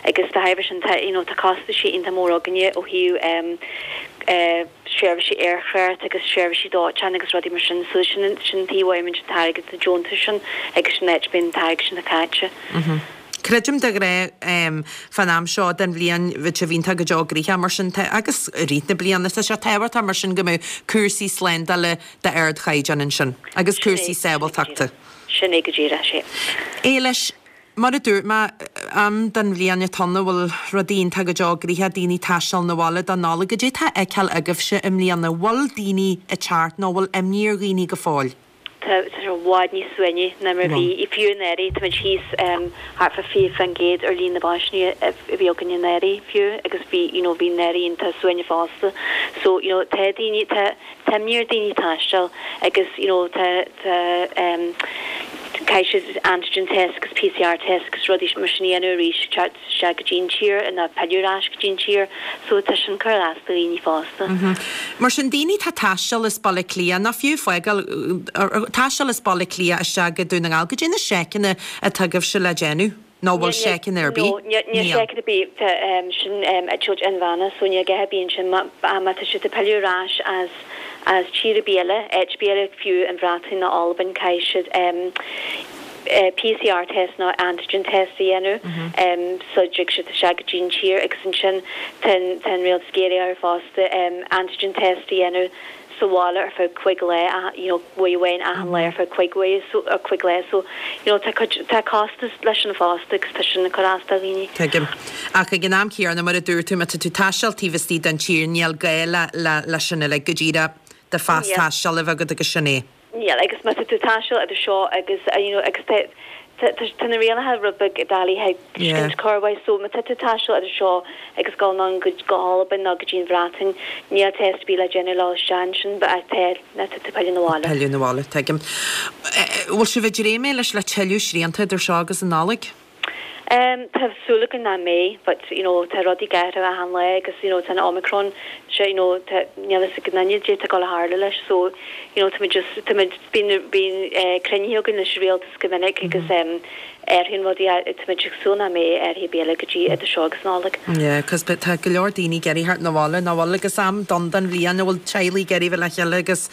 agus dá thairbhe sin tá, you know, tá costaisí iontach mór againne ó thaobh seirbhísí aerthráchta agus seirbhísí dóiteáin agus rudaí mar sin. So sin, sin an taobh a bhfaighimid an t-airgead, na deontais sin agus sin an áit a mbíonn an t-airgead sin caite. Creidim de ghnáth fán am seo den bhliain bheadh sé iontach go deo gnoitheach mar sin tá agus i rith na bliana tá sé tábhachtach mar sin go mbeadh cúrsaí slándála d'ardchaighdeán ansin agus cúrsaí sábháilteachta. Sin é go díreach, sea. Éilis, mar a dúirt mé, am den bhliain atá ann a bhfuil rudaí iontach go deo gnoitheach, daoine ag taisteal 'na bhaile don Nollaig. Goidé atá á fheiceáil agaibhse i mbliana? Bhfuil daoine ag teacht nó bhfuil imní ar dhaoine go fóill? Tá sé i bhfad níos suaimhní ná mar a bhí, fiú anuraidh. Táimid thíos thart fá 20% ar líon na bpaisinéirí a bhí againn anuraidh fiú agus bhí, you know, bhí anuraidh iontach suaimhneach fosta. So, you know, tá daoine, tá, tá imní ar daoine taisteal agus, you know, tá, tá, caithfidh siad antigen test agus PCR test agus rudaí mar sin a dhéanamh arís. isteach go dtí an tír nó pilleadh ar ais go dtí an tír so tá sin ag cur as do dhaoine fosta. Mar sin, daoine atá ag taisteal as Baile Átha Cliath, nó fiú fágáil, taisteal as Baile Átha Cliath isteach go Dún na nGall, goidé na seiceanna atá agaibhse le déanamh? Nó bhfuil seiceanna ar bith? No, níl seiceanna ar bith, tá sin eitilt inmheánach so níl a dhath ar bith ansin má tá siad ag pilleadh ar ais as as tír ar bith eile, áit ar bith eile, fiú an Bhreatain nó Albain, caithfidh siad. PCR test nó antigen test a dhéanamh sula dtig siad isteach go dtí an tír agus ansin tá an rialtas ag iarraidh orthu fosta antigen test a dhéanamh sa bhaile ar feadh cuig lá, you know, uair amháin achan lá ar feadh cuig uair so, or cuig lá so, you know, tá cuid, tá costas leis sin fosta agus tá sin ag cur as do dhaoine. Tuigim. Ach ag an am céanna, mar a dúirt tú, má tá tú ag taisteal taobh istigh den tír, níl gá le, le, leis sin uilig, go díreach do phas taistil a bheith agat agus sin é. Níl, agus má tá tú ag taisteal idir seo agus, you know, agus tá, tá, tá na rialacha rud beag doiligh a thuiscint corruair, so má tá tú ag taisteal idir seo agus dul anonn go, go hAlbain nó go dtí an Bhreatain, níl test ar bith le déanamh le dhul isteach ansin, but tá, má tá tú ag pilleadh na bhaile. Pilleadh na bhaile, tuigim. Bhfuil sibh ag dréim leis le tuilleadh srianta idir seo agus an Nollaig? Tá súil againn nach mbeidh but you know tá rudaí ag athrú achan lá agus you know tá an Omicron seo you know tá níl fhios ag aon duine caidé atá ag dul a tharlú leis so you know tá muid just tá muid bíonn bíonn eh cruinnithe againn leis an rialtas go minic agus em athraíonn rudaí tá muid ag súil nach mbeidh athruithe ar bith eile go dtí idir seo agus Nollaig. Yeah cos tá go leor daoine ag iarraidh theacht na bhaile nach bhfuil agus am donn den bhliain a bhfuil teaghlaigh ag iarraidh bheith le chéile agus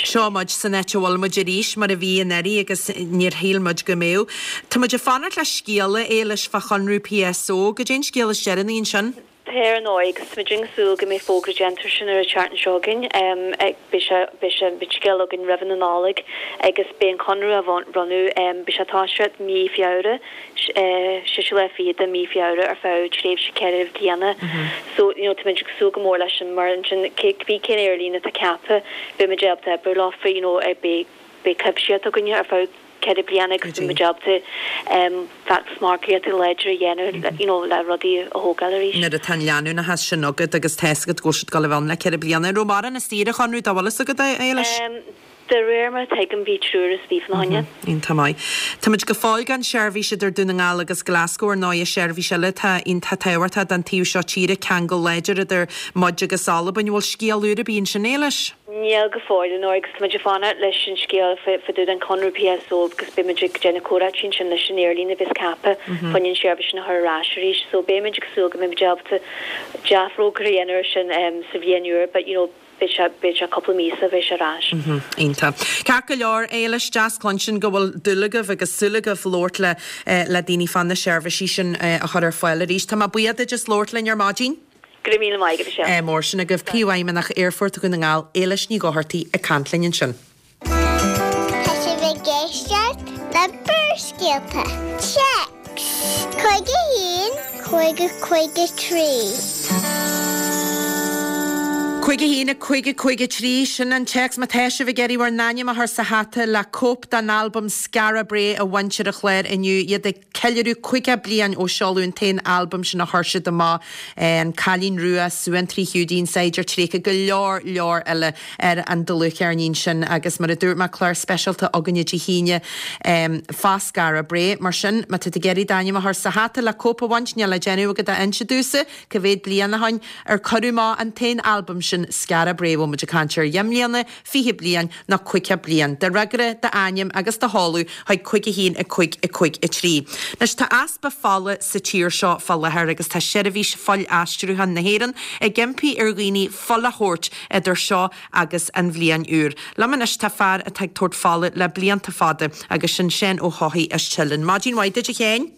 Seo muid san áit a bhfuil muid arís, mar a bhí anuraidh agus níor shíl muid go mbeadh. Tá muid ag fanacht le scéala, a Éilis, fá chonradh PSO. Goidé an scéal is deireanaí ansin? Tá ar ndóigh, agus tá muid ag súil go mbeidh fógra déanta air sin ar an tseachtain seo chugainn. Beidh sé, beidh sé, beidh scéal againn roimh na Nollag agus beidh an conradh á bhronnadh, beidh sé ag toiseacht mí Feabhra. séú lá fichead de mí Feabhra ar feadh tréimhse 4 bliana. So, you know, táimid ag súil go mór leis sin mar ansin cibé cén aerlíne atá ceaptha, beimid ábalta oibriú leofa, you know, beidh beidh cuimsitheacht againne ar feadh 4 bliana agus beimid ábalta feachtas margaíochta láidir a dhéanamh, you know, le rudaí a thógáil arís. Nuair atá an leanúnachas sin agat agus tá fhios agat go bhfuil siad ag dul a bheith ann le 4 bliana. An raibh mórán istigh ar an chonradh dá bhfuil fhios agat, a Éilis? De réir mar a tuigim bhí triúr istigh fána choinne. Iontach maith. Táimid go fóill gan seirbhís idir Dún na nGall agus Glasgow ar ndóigh, seirbhís eile atá iontach tábhachtach don taobh seo tíre, ceangal láidir idir muid agus Albain. Bhfuil scéal úr ar bith ansin, Éilis? Níl go fóill, ar ndóigh, agus táimid ag fanacht leis an scéal fá dtaobh den chonradh PSO agus beimid ag déanamh comhráití ansin leis an aerlíne a bheas ceaptha fá choinne an seirbhís sin a chur ar ais arís. So beimid ag súil go mbeimid ábalta dea-fhógra a dhéanamh ar sin sa bhliain úr but you know, Beidh sé, beidh sé cúpla mí sula bheidh sé ar ais. Iontach. Ceart go leor, Éilis, deas cluinstin go bhfuil dúil agaibh agus súil agaibh labhairt le le daoine fá na seirbhísí sin a chur ar fáil arís. Tá mé buíoch duit as labhairt linn ar maidin. Go raibh míle maith agat, a Mhichelle. Ádh mór sin agaibh. Príomhfheidhmeannach Aerfort Dhún na nGall, Éilis Ní Dhochartaigh ag caint linn ansin. Tá sibh ag éisteacht le Barrscéalta. Téacs 51 50 53. 51 50 53, sin an téacs. Má tá sibh ag iarraidh bhur n-ainm a chur sa hata le cóip den albam Skara Brae a bhaint ar an chlár inniu, iad ag ceiliúradh 50 bliain ó seoladh an t-aon albam sin a chuir siad amach, An Cailín Rua, Suantraí Hiúdaí, An Saighdiúir Tréigthe, go leor leor eile ar an dlúthcheirnín sin agus mar a dúirt mé, clár speisialta againne Dé hAoine fá Skara Brae. Mar sin, má tá tú ag iarraidh d'ainm a chur sa hata le cóip a bhaint, níl le déanamh agat ach inse domhsa cá mhéad bliain ó shin ar cuireadh amach an t-aon albam sin, Skara Brae. Bhfuil muid ag caint ar dheich mbliana, 20 bliain nó 50 bliain. Do fhreagra, d'ainm agus do sheoladh chuig 5 1 5 5 3. Anois tá easpa fola sa tír seo fá láthair agus tá Seirbhís Fuil-Aistriúcháin na hÉireann ag impí ar dhaoine fuil a thabhairt idir seo agus an bhliain úr. Liom anois tá fear atá ag tabhairt fola le blianta fada agus sin Seán Ó hEochaidh as Teileann. Maidin mhaith duit a Sheáin.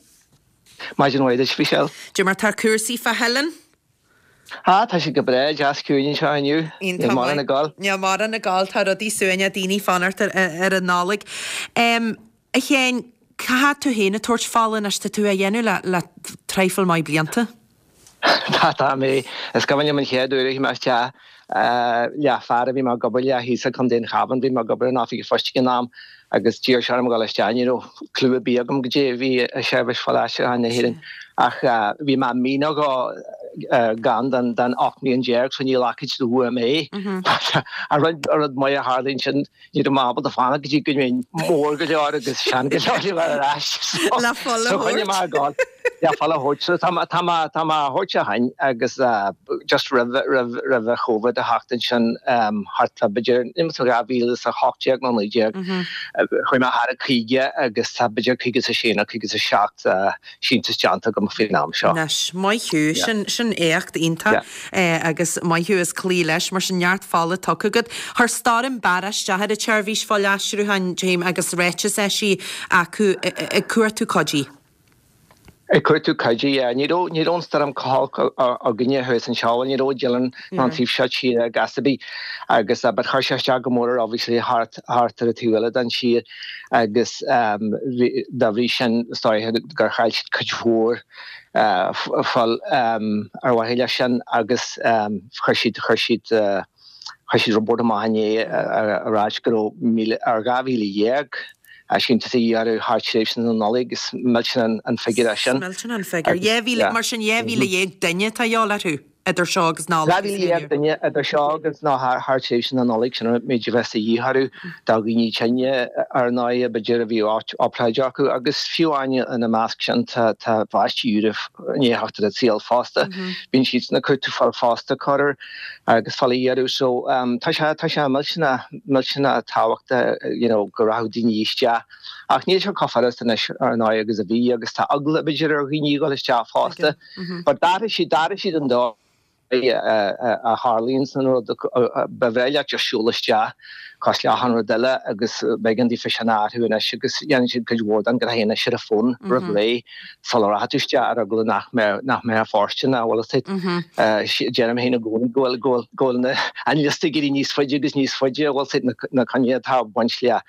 Maidin mhaith duit, Michelle. Dé mar tá cúrsaí fá Theileann? Ah, tá sé go breá, deas ciúin anseo inniu. Níl mórán ag gabháil. Níl mórán ag gabháil, tá rudaí suaimhneach, daoine ag fanacht ar an Nollaig. A Sheáin, cá fhad tú féin ag tabhairt fola anois, tá tú á dhéanamh le le traidhfil maith blianta? Tá, tá mé. Is cuimhin liom an chéad uair a chuaigh mé isteach le fear a bhí mé ag obair le thíos i gContae an Chabháin, bhí mé ag obair in oifig an phoist ag an am agus d'iarr sé orm a dhul isteach, ní raibh clue ar bith agam goidé a bhí i Seirbhís Fuil-Aistriúcháin na hÉireann ach bhí mé mí nó dhó gann den 18 mbliain so ní ghlacfaid siad uaim é. An rud maith a tharla ansin ní raibh mé ábalta fanacht go dtí go mbeinn mór go leor agus sean go leor le bheith ar ais so choinnigh mé ag gabháil. Le fuil a thabhairt. So tá mé, tá mé, tá mé á thabhairt ó shin agus just roimh, roimh, roimh an Covid a theacht ansin thart fá b'fhéidir, níl mé 2018 nó 19, chuaigh mé thar an 50 agus tá b'fhéidir 56 nó 57 síntiús déanta agam faoin am seo. Anois, maith thú, sin, sin éacht iontach agus maith thú as cloí leis, mar sin neart fola tugtha agat. Chuir Stoirm Barra isteach ar an tseirbhís fuilaistriúcháin, Jim, agus ráiteas eisithe acu ag cuartú cuidí. Ag cuartú cuidí, yeah. Ní raibh, ní raibh an stoirm chomh holc againne thuas anseo, bhuel ní raibh i Dillon ná an taobh seo tíre ag ar bith agus but chuir sé isteach go mór ar obviously thart, thart ar an taobh eile den tír agus dá bhrí sin is dóiche gur chaill siad cuid mhór fuil ar mhaithe leis sin agus chuir siad, chuir siad, chuir siad report amach inné ag ráit go raibh míle, ar 12,000 síntiús a dhíth orthu thar tréimhse na Nollag. Is millteanach an figiúr é sin. Is millteanach an figiúr. 2,000, mar sin 12,000 duine atá a dhíobháil orthu. idir seo agus Nollaig. 12,000 duine idir seo agus nó thar tréimhse na Nollag, sin an méid a bheas de dhíth orthu do dhaoine tinne ar ndóigh, b'fhéidir a bhí obráid acu agus fiú amháin ina measc sin tá tá páistí úra i ndiaidh theacht ar an saol fosta. Bíonn siadsan ag cuartú fuil fosta corruair agus fuil a iarraidh so tá sé tá sé millteanach millteanach tábhachtach you know go rachadh daoine isteach ach níl sé chomh furast anois ar ndóigh agus a bhí agus tá eagla b'fhéidir ar dhaoine a dhul isteach fosta. But d'athraigh siad, d'athraigh siad an dóigh a tharlaíonn an rud. Ba bhreá leat just siúl isteach cosúil le achan rud eile agus b'éigean daofa sin a athrú anois agus dhéanann siad cuid mhór den ghnó anois ar an bhfón roimh ré sula rachaidh tú isteach ar eagla nach mbeadh, nach mbeadh fóirsteanach, bhfuil fhios agat. Deirim féin i gcónaí go bhfuil, go bhfuil, go bhfuil na, an liosta ag éirí níos faide agus níos faide, bhfuil fhios agat, na, na coinní atá ag baint le,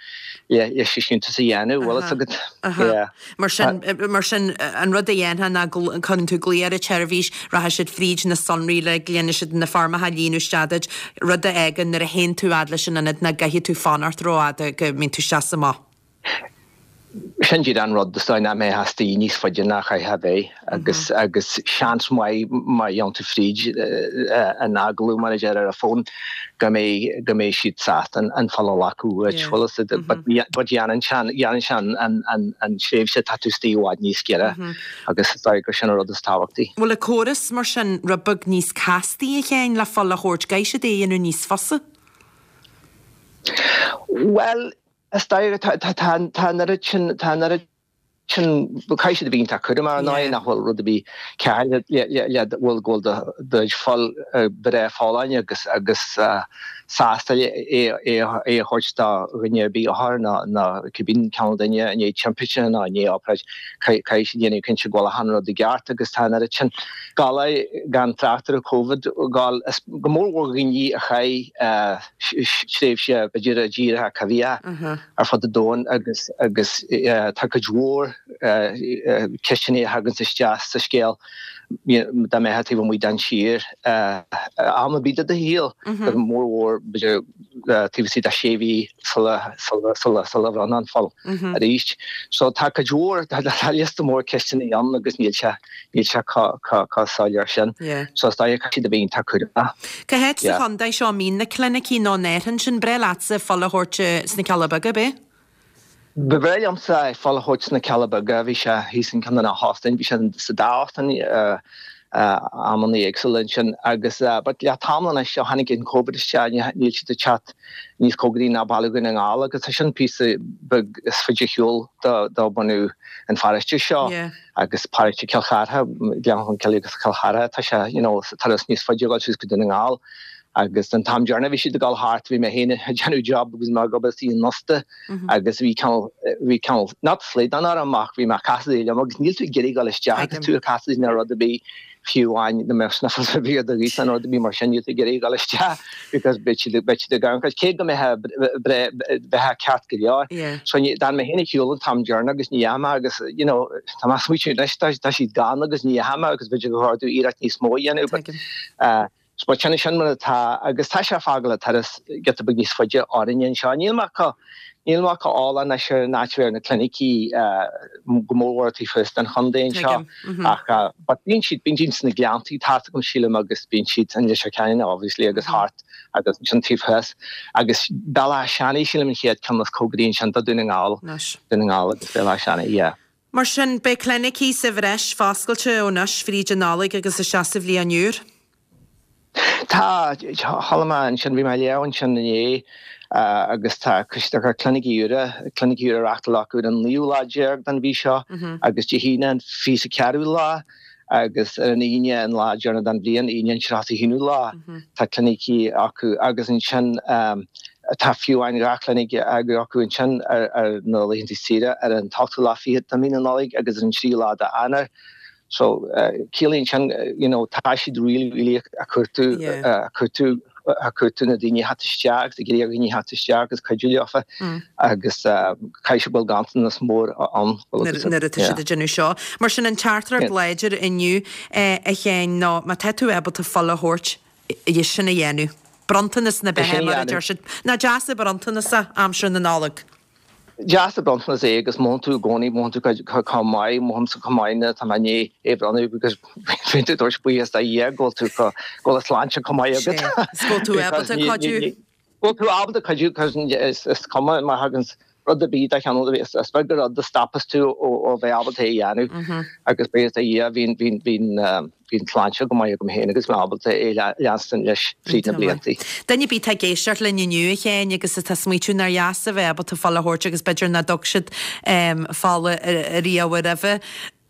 le, leis an síntiús a dhéanamh, bhfuil fhios agat. Yeah. Mar sin, mar sin, an rud a dhéanfá ná go gcuireann tú glao ar an tseirbhís, rachaidh siad fríd na sonraí uilig, déanfaidh siad na foirmeacha a líonadh isteach duit, rud a fhágann nuair a théann tú fhad leis an ionad nach gcaithfidh tú fanacht rófhada, go mbíonn tú isteach is amach. Sin díreach an rud, is dóigh nach mbeifeá istigh níos faide ná chaithfeá a bheith agus, agus seans maith má dhéanann tú fríd an agallamh mar a deir ar an bhfón, go mbeidh, go mbeidh siad sásta an fuil a ghlacadh uait, bhfuil fhios agat, but but dhéanann sé, dhéanann sé an, an, an, an tréimhse atá tú istigh i bhfad níos giorra agus is dóigh gur sin an rud is tábhachtaí. Bhfuil an córas mar sin rud beag níos castaí a Sheáin le fuil a thabhairt, gcaithfidh siad é a dhéanamh níos fusa? Bhuel, is dóigh, tá, tá, tá, tá an oiread sin, tá an oiread sin, caithfidh siad a bheith iontach cúramach ar ndóigh, nach bhfuil rud ar bith cearr le le bhfuil go bhfuil do do fuil breá folláin agus agus sásta é é é a thabhairt do dhuine ar bith othar nó nó cibé cineál duine i ndiaidh timpiste nó i ndiaidh obráid caithfidh siad déanamh cinnte go bhfuil achan rud i gceart agus tá an oiread sin galar gan trácht ar an Covid gal is go mór mhór dhaoine a chaith tréimhse b'fhéidir i dtíortha coimhthíocha ar fud an domhain agus agus tá cuid mhór ceisteanna a thaganns isteach sa scéal dá mbeifeá taobh amuigh den tír am ar bith de do shaol, go mór mhór b'fhéidir taobh istigh de sé mhí sula sula sula sula bhronnfá an fuil arís. So tá cuid mhór, tá liosta mór ceisteanna ann agus níl sé níl sé chomh soiléir sin. So is dóigh caithfidh siad a bheith iontach cúramach. Cá háit sa chontae seo a mbíonn na clinicí nó an ndéarfainn sin? Breá leatsa fuil a thabhairt sna Cealla Beaga, ab é? Ba bhreá liomsa fuil a thabhairt sna Cealla Beaga. Bhí sé thíos in ceann de na hóstáin, bhí sé sa dá óstán amanna éagsúla ansin agus but le tamall anois ó tháinig an Covid isteach níl siad ag teacht níos cóngaraí ná Baile Dhún na nGall agus tá sin píosa beag is faide ar shiúl do bunadh an pharóiste seo. Agus paróiste Chill Chartha, Gleann Cholm Cille agus Cill Chartha, tá sé, you know, turas níos faide a dhul suas go Dún na nGall. Agus an t-am deireanach a bhí siad ag dul thart, bhí mé féin ag déanamh job agus mé ag obair istigh in ósta agus bhí cineál, bhí cineál, not slaghdán orm ach bhí mé ag casadh liom agus níl tú ag iarraidh dul isteach agus tú ag casadh nó rud ar bith fiú amháin dá mbeadh sniffles ar bith ar do ghaoth nó rud ar bith mar sin, níl tú ag iarraidh dul isteach because beidh siad, beidh siad ag amharc cé go mbeifeá bheifeá ceart go leor. So d'fhan mé féin ar shiúl an t-am deireanach agus ní dheachaigh mé agus you know tá mé ag smaoitiú anois tá tá siad gann agus ní dheachaigh mé agus b'fhéidir gur chóir domh iarracht níos mó a dhéanamh but uh, but sin sin mar atá agus tá sé ag fágáil an turas giota beag níos faide orainne anseo. Níl mé chomh níl mé chomh eolach anois ar an áit a bhfuil na clinicí go mór mhór taobh thuas den chontae anseo ach but bíonn siad bíonn siad sna Gleanntaí tá a fhios agam sílim agus bíonn siad in Leitir Ceanainn obviously agus thart agus ansin taobh thuas agus Béal Átha Seanaidh sílim an chéad ceann is cóngaraí ansin do Dún na nGall Dún na nGall agus Béal Átha Seanaidh yeah. Mar sin, beidh clinicí sa bhreis foscailte ó anois fríd an Nollaig agus isteach sa bhliain úr. Tá, chuala mé ansin, bhí mé ag léamh ansin inné agus tá tá clinicí úra, clinicí úra á reachtáil acu ar an naoú lá déag den mhí seo agus Dé hAoine an 24ú lá agus ar an Aoine an lá deireanach den bhliain, Aoine an 31ú lá, tá clinicí acu agus ansin tá fiú amháin 2 chlinic acu ansin ar na laethanta saoire ar an t-ochtú lá fichead de mhí na Nollag agus ar an tríú lá d'Eanáir. So ciallaíonn sin you know tá siad really really ag cuartú ag cuartú ag cuartú na daoine a theacht isteach agus ag iarraidh ar dhaoine theacht isteach agus cuidiú leofa agus caithfidh sé go bhfuil ganntanas mór ann. Nuair atá siad ag déanamh seo. Mar sin an teachtaireacht láidir inniu a Sheáin ná má tá tú ábalta fuil a thabhairt, é sin a dhéanamh. Bronntanas na beatha mar a deir siad. Nach deas an bronntanas é aimsir na Nollag. Deas an bronntanas é agus mothaíonn tú i gcónaí, mothaíonn tú chomh maith, mothaímsa chomh maith nuair atá mé i ndiaidh é a bhronnadh because bíonn tú ag tabhairt buíochas do Dhia go bhfuil tú go bhfuil an tsláinte chomh maith agat. Sea, is go bhfuil tú ábalta cuidiú. Go bhfuil tú ábalta cuidiú because is cuma má thagann rud ar bith de chineál ar bith, is beag an rud a stopas tú ó bheith ábalta é a dhéanamh agus buíochas do Dhia bhíonn, bhíonn, bhíonn, Bhí an tsláinte go maith agam féin agus mé ábalta é leanstan leis fríd na blianta. Duine ar bith atá ag éisteacht linn inniu, a Sheáin, agus atá ag smaoitiú nár dheas a bheith ábalta fuil a thabhairt agus b'fhéidir nach dtug siad fola riamh roimhe,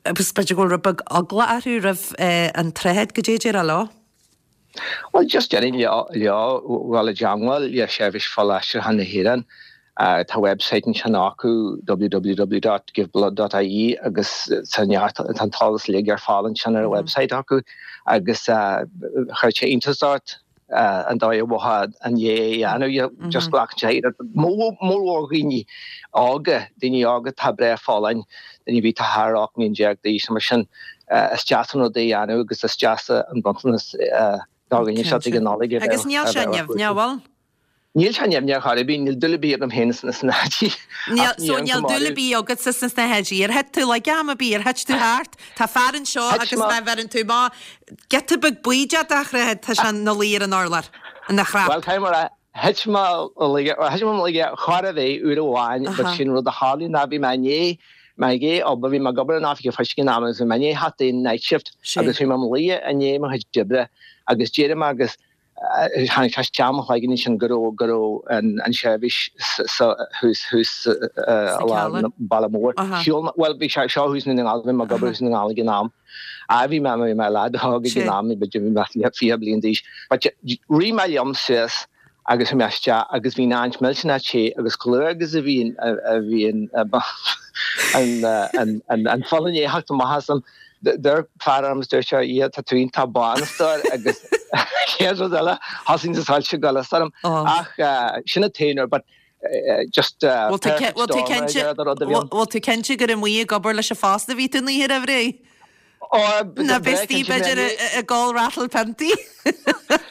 agus b'fhéidir go bhfuil rud beag eagla orthu roimh an tsnáthaid, goidé a déarfá leo? Bhuel, just déarfainn leo dhul i dteangmháil le Seirbhís Fuilaistriúcháin na hÉireann. Tá website ansin acu, www.giveblood.ie, agus tá neart, tá an t-eolas uilig ar fáil ansin ar an website acu agus chuirfeadh sé iontas ort an dóigh a bhfaighfeá an é a dhéanamh, just glacann sé iarracht. Mórmhór dhaoine óga, daoine óga atá breá folláin, daoine a bhí tá thar 18 mbliain d'aois nó mar sin, is deas an rud é a dhéanamh agus is deas an bronntanas do dhuine seo ag an Nollaig a bheith Agus níl sé nimhneach, bhfuil? Níl sé nimhneach ar chor ar bith, níl dúil ar bith agam féin sna snáthaidí. Níl, so níl dúil ar bith agatsa sna snáthaidí. Ar thit tú laige am ar bith, ar thit tú thart? Tá fear anseo agus má bheireann tú amach giota beag baoideach dá shnáthaid, tá sé ina luí ar an urlár, ina chrap. Bhuel, caithfidh mé a rá, thit mé laige, thit mé laige chor ar bith uair amháin, but sin rud a tharlaigh ná bhí mé i ndiaidh, mé i ndiaidh obair, bhí mé ag obair in oifig an phoist ag an am agus bhí mé i ndiaidh theacht ón night shift agus bhí mé i mo luí i ndiaidh mo chuid oibre agus d'éirigh mé agus Tháinig sé isteach i mo chloigeann ansin go raibh, go raibh an seirbhís sa, thuas, thuas i lár an bhaile mór. Shiúil mé, bhuel bhí sé seo thuas i nDún na nGall, bhí mé ag obair thuas i nDún na nGall ag an am. Á bhí mé, bhí mé leaid óg ag an am, b'fhéidir bhí mé 20 bliain d'aois. But rith mé liom suas agus bhí mé isteach agus bhí an áit millteanach te agus chomh luath agus a bhí an, a bhí an, an, an, an fuil i ndiaidh theacht amach asam, Dúirt fear orm is dúirt sé, yeah, tá tú iontach bán a stór agus chéad rud eile, thosaigh na soilse ag goil as orm. Ach sin an t-aon uair, but just perfect storm ar deireadh do rud a bhí ann. Bhfuil tú cinnte gur amuigh ag obair leis an phost a bhí tú an oíche roimh ré? Ná bheas tú b'fhéidir ag ól ratal piontaí?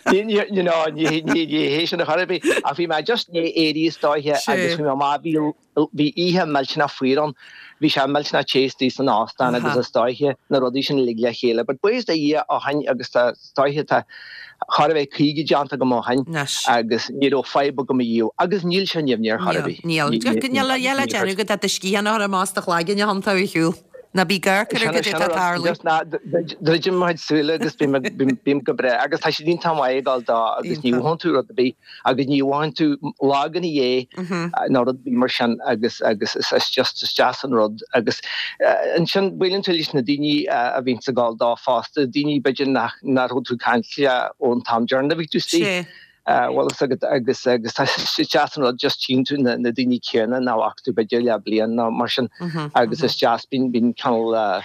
Ní, you know, ní hé sin ar chor ar bith. Ach bhí mé just i ndiaidh éirí is dóiche agus bhí mé amach, bhí Bhí oíche millteanach fuar ann. Bhí sé millteanach te istigh san óstán agus is dóiche na rudaí sin uilig le chéile. But buíochas do Dhia ó shin agus tá is dóiche tá chóir a bheith 50 déanta agam ó shin agus ní raibh fadhb agam ariamh agus níl sé nimhneach ar chor ar bith. Níl. Níl a dhath le déanamh agat ach do sciathán a chur amach as do chloigeann a thiontú ar shiúl. Ná bí ag amharc ar goidé atá ag tarlú. Druidim mo chuid súile agus bím go breá agus tá siad iontach maith ag dul dó agus ní mhothaíonn tú rud ar bith. agus ní mhothaíonn tú lag ina dhiaidh nó rud ar bith mar sin agus agus is just is deas an rud agus ansin buaileann tú leis na daoine a bhíonns ag gabháil dó fosta, daoine b'fhéidir nach nach raibh tú ag caint leo ón t-am deireanach a bhí tú istigh. Bhfuil fhios agat agus agus tá is deas an rud just tchíonn tú na na daoine céanna nach bhfaca tú b'fhéidir le bliain nó mar sin agus is deas bíonn bíonn cineál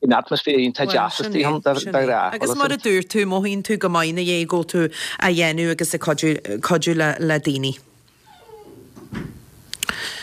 An atmaisféar iontach deas istigh ann de ghnáth. Agus mar a dúirt tú, mothaíonn tú go maith ina dhiaidh go bhfuil tú á dhéanamh agus ag cuidiú le daoine.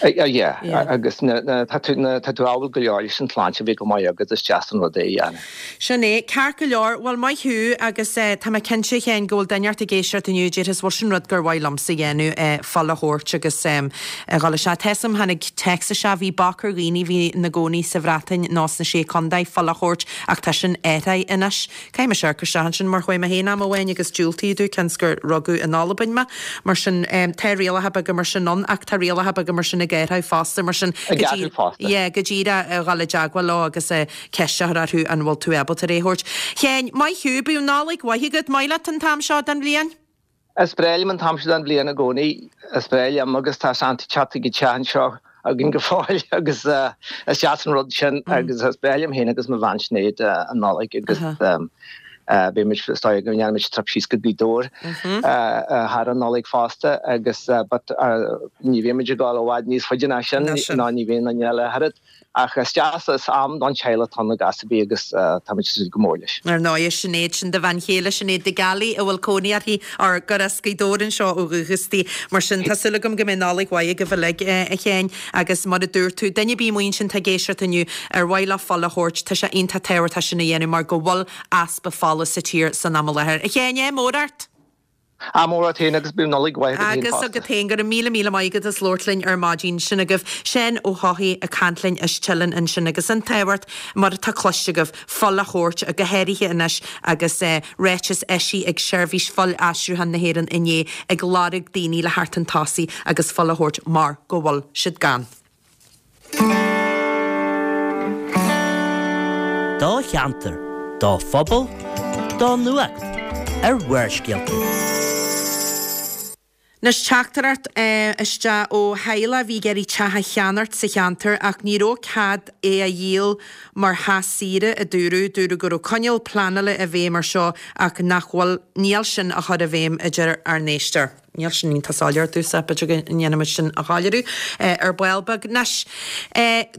Yeah, agus tá tú tá tú ábalta go leor leis an tsláinte a bheith go maith agat, is deas an rud é a dhéanamh. Sin é, ceart go leor, bhuel maith thú agus tá mé cinnte a Sheáin go bhfuil duine inteacht ag éisteacht inniu a déarfas bhuel sin rud gur mhaith liomsa a dhéanamh, fuil a thabhairt agus a dhul isteach. Tá 'fhios a'm, tháinig téacs isteach, bhí bac ar dhaoine a bhí ina gcónaí sa Bhreatain nó sna Sé Contae fuil a thabhairt ach tá sin athraithe anois. Caithfidh mise amharc isteach ansin mar chuaigh mé féin am amháin agus diúltaíodh domh cionn 's gur rugadh in Albain mé. Mar sin, tá rialacha beaga mar sin ann ach tá rialacha beaga mar sin ag. i gCaerthaigh fosta, mar sin I gCaerthaigh fosta. Yeah, go díreach a dhul i dteagmháil leo agus ceist a chur orthu an bhfuil tú ábalta é a thabhairt. Sheáin, maith thú, bíodh Nollaig mhaith agat, maith leat an t-am seo den bhliain? Is breá liom an t-am seo den bhliain i gcónaí, is breá liom agus tá Santa ag teacht chuig an teach anseo againn go fóill agus is deas an rud sin agus is breá liom féin agus mo bhean Sinéad an Nollaig agus beidh muid is dóigh go ndéanfaidh muid trip síos go Gaoth Dobhair thar an Nollaig fosta agus but ní bheidh muid ag dul i bhfad níos faide ná sin ná ní bheidh aon duine eile thart. Ach is deas, is am don teaghlach atá ann i gcás ar bith agus táimid ag súil go mór leis. Ar ndóigh, Sinéad, sin do bhean chéile, Sinéad de Gealaigh, a bhfuil cónaí uirthi, or gur as Gaoth Dobhair anseo ó dhúchas di. Mar sin, tá súil agam go mbeidh Nollaig mhaith agaibh uilig, a Sheáin, agus mar a dúirt tú, duine ar bith amuigh ansin atá ag éisteacht inniu, ar mhaith leo fuil a thabhairt, tá sé iontach tábhachtach sin a dhéanamh mar go bhfuil easpa fola sa tír san am i láthair. A Sheáin, ádh mór ort! Ádh mór ort féin agus bíodh Nollaig mhaith agat féin Agus fosta. agat féin, go raibh míle míle maith agat as labhairt linn ar maidin. Sin agaibh Seán Ó hEochaidh ag caint linn as Teileann ansin agus an tábhacht, mar atá cloiste agaibh, fuil a thabhairt, go háirithe anois agus ráiteas eisithe ag Seirbhís Fuil-Aistriúcháin na hÉireann inné ag lorg daoine le theacht chun tosaigh agus fuil a thabhairt mar go bhfuil siad gann. Do cheantar, do phobal, do nuacht ar Bharrscéalta. Anois teachtaireacht isteach ó theaghlach a bhí ag iarraidh teach a cheannacht sa cheantar ach ní raibh cead é a dhíol mar theach saoire, a dúradh. Dúradh go raibh coinníoll pleanála i bhfeidhm ar seo ach nach bhfuil, níl sin á chur i bhfeidhm, a deir ár n-éisteoir. Níl sin iontach soiléir domhsa, b'fhéidir go ndéanfaidh muid sin a shoiléiriú ar ball beag. Anois,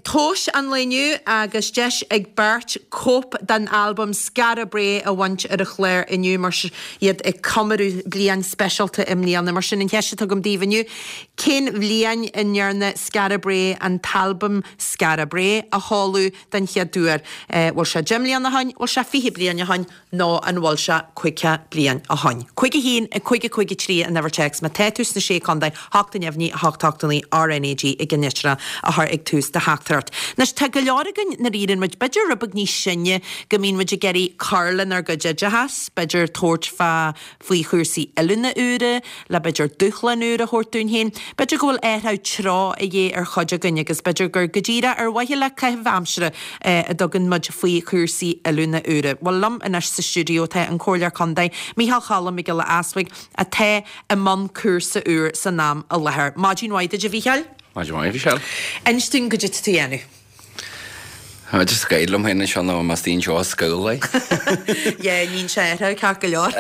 tomhais an lae inniu agus deis ag beirt cóip den albam Skara Brae a bhaint ar an chlár inniu mar iad ag comóradh bliain speisialta i mbliana. Mar sin, an cheist atá agam daoibh inniu, cén bhliain a ndearna Skara Brae an t-albam Skara Brae a sheoladh den chéad uair? Bhfuil sé 10 mbliana ó shin? Bhfuil sé 20 bliain ó shin? Nó an bhfuil sé 50 bliain ó shoin? 5 1 5 5 3 an uimhir téacs má tá tú sna Sé Contae, 8 neamhní 8 8 9 RnaG i gceannlitreacha a chur ag tús do theachtaireacht. Anois tá go leor againn nuair a éiríonn muid b'fhéidir rud beag níos sine go mbíonn muid ag iarraidh cur lenár gcuid oideachas, b'fhéidir tabhairt fá faoi chúrsaí oiliúna úra, le b'fhéidir dúshlán úr a thabhairt dúinn féin. B'fhéidir go bhfuil athrú treo a dhíth ar chuid againn agus b'fhéidir gur go díreach ar mhaithe le caitheamh aimsire a dtugann muid faoi chúrsaí oiliúna úra. Bhuel, liom anois sa stiúideo tá an Comhairleoir Contae, Micheál Cholm Mac Giolla Easbuig, atá i mbun cúrsa úr san am i láthair. Maidin mhaith duit, a Mhícheáil. Maidin mhaith, a Mhichelle. Inis dúinn goidé tá tú a dhéanamh. Tá just ag gáire liom féin anseo nó más daoine seo scoil é. Yeah, níonn sé athrú ceart go leor.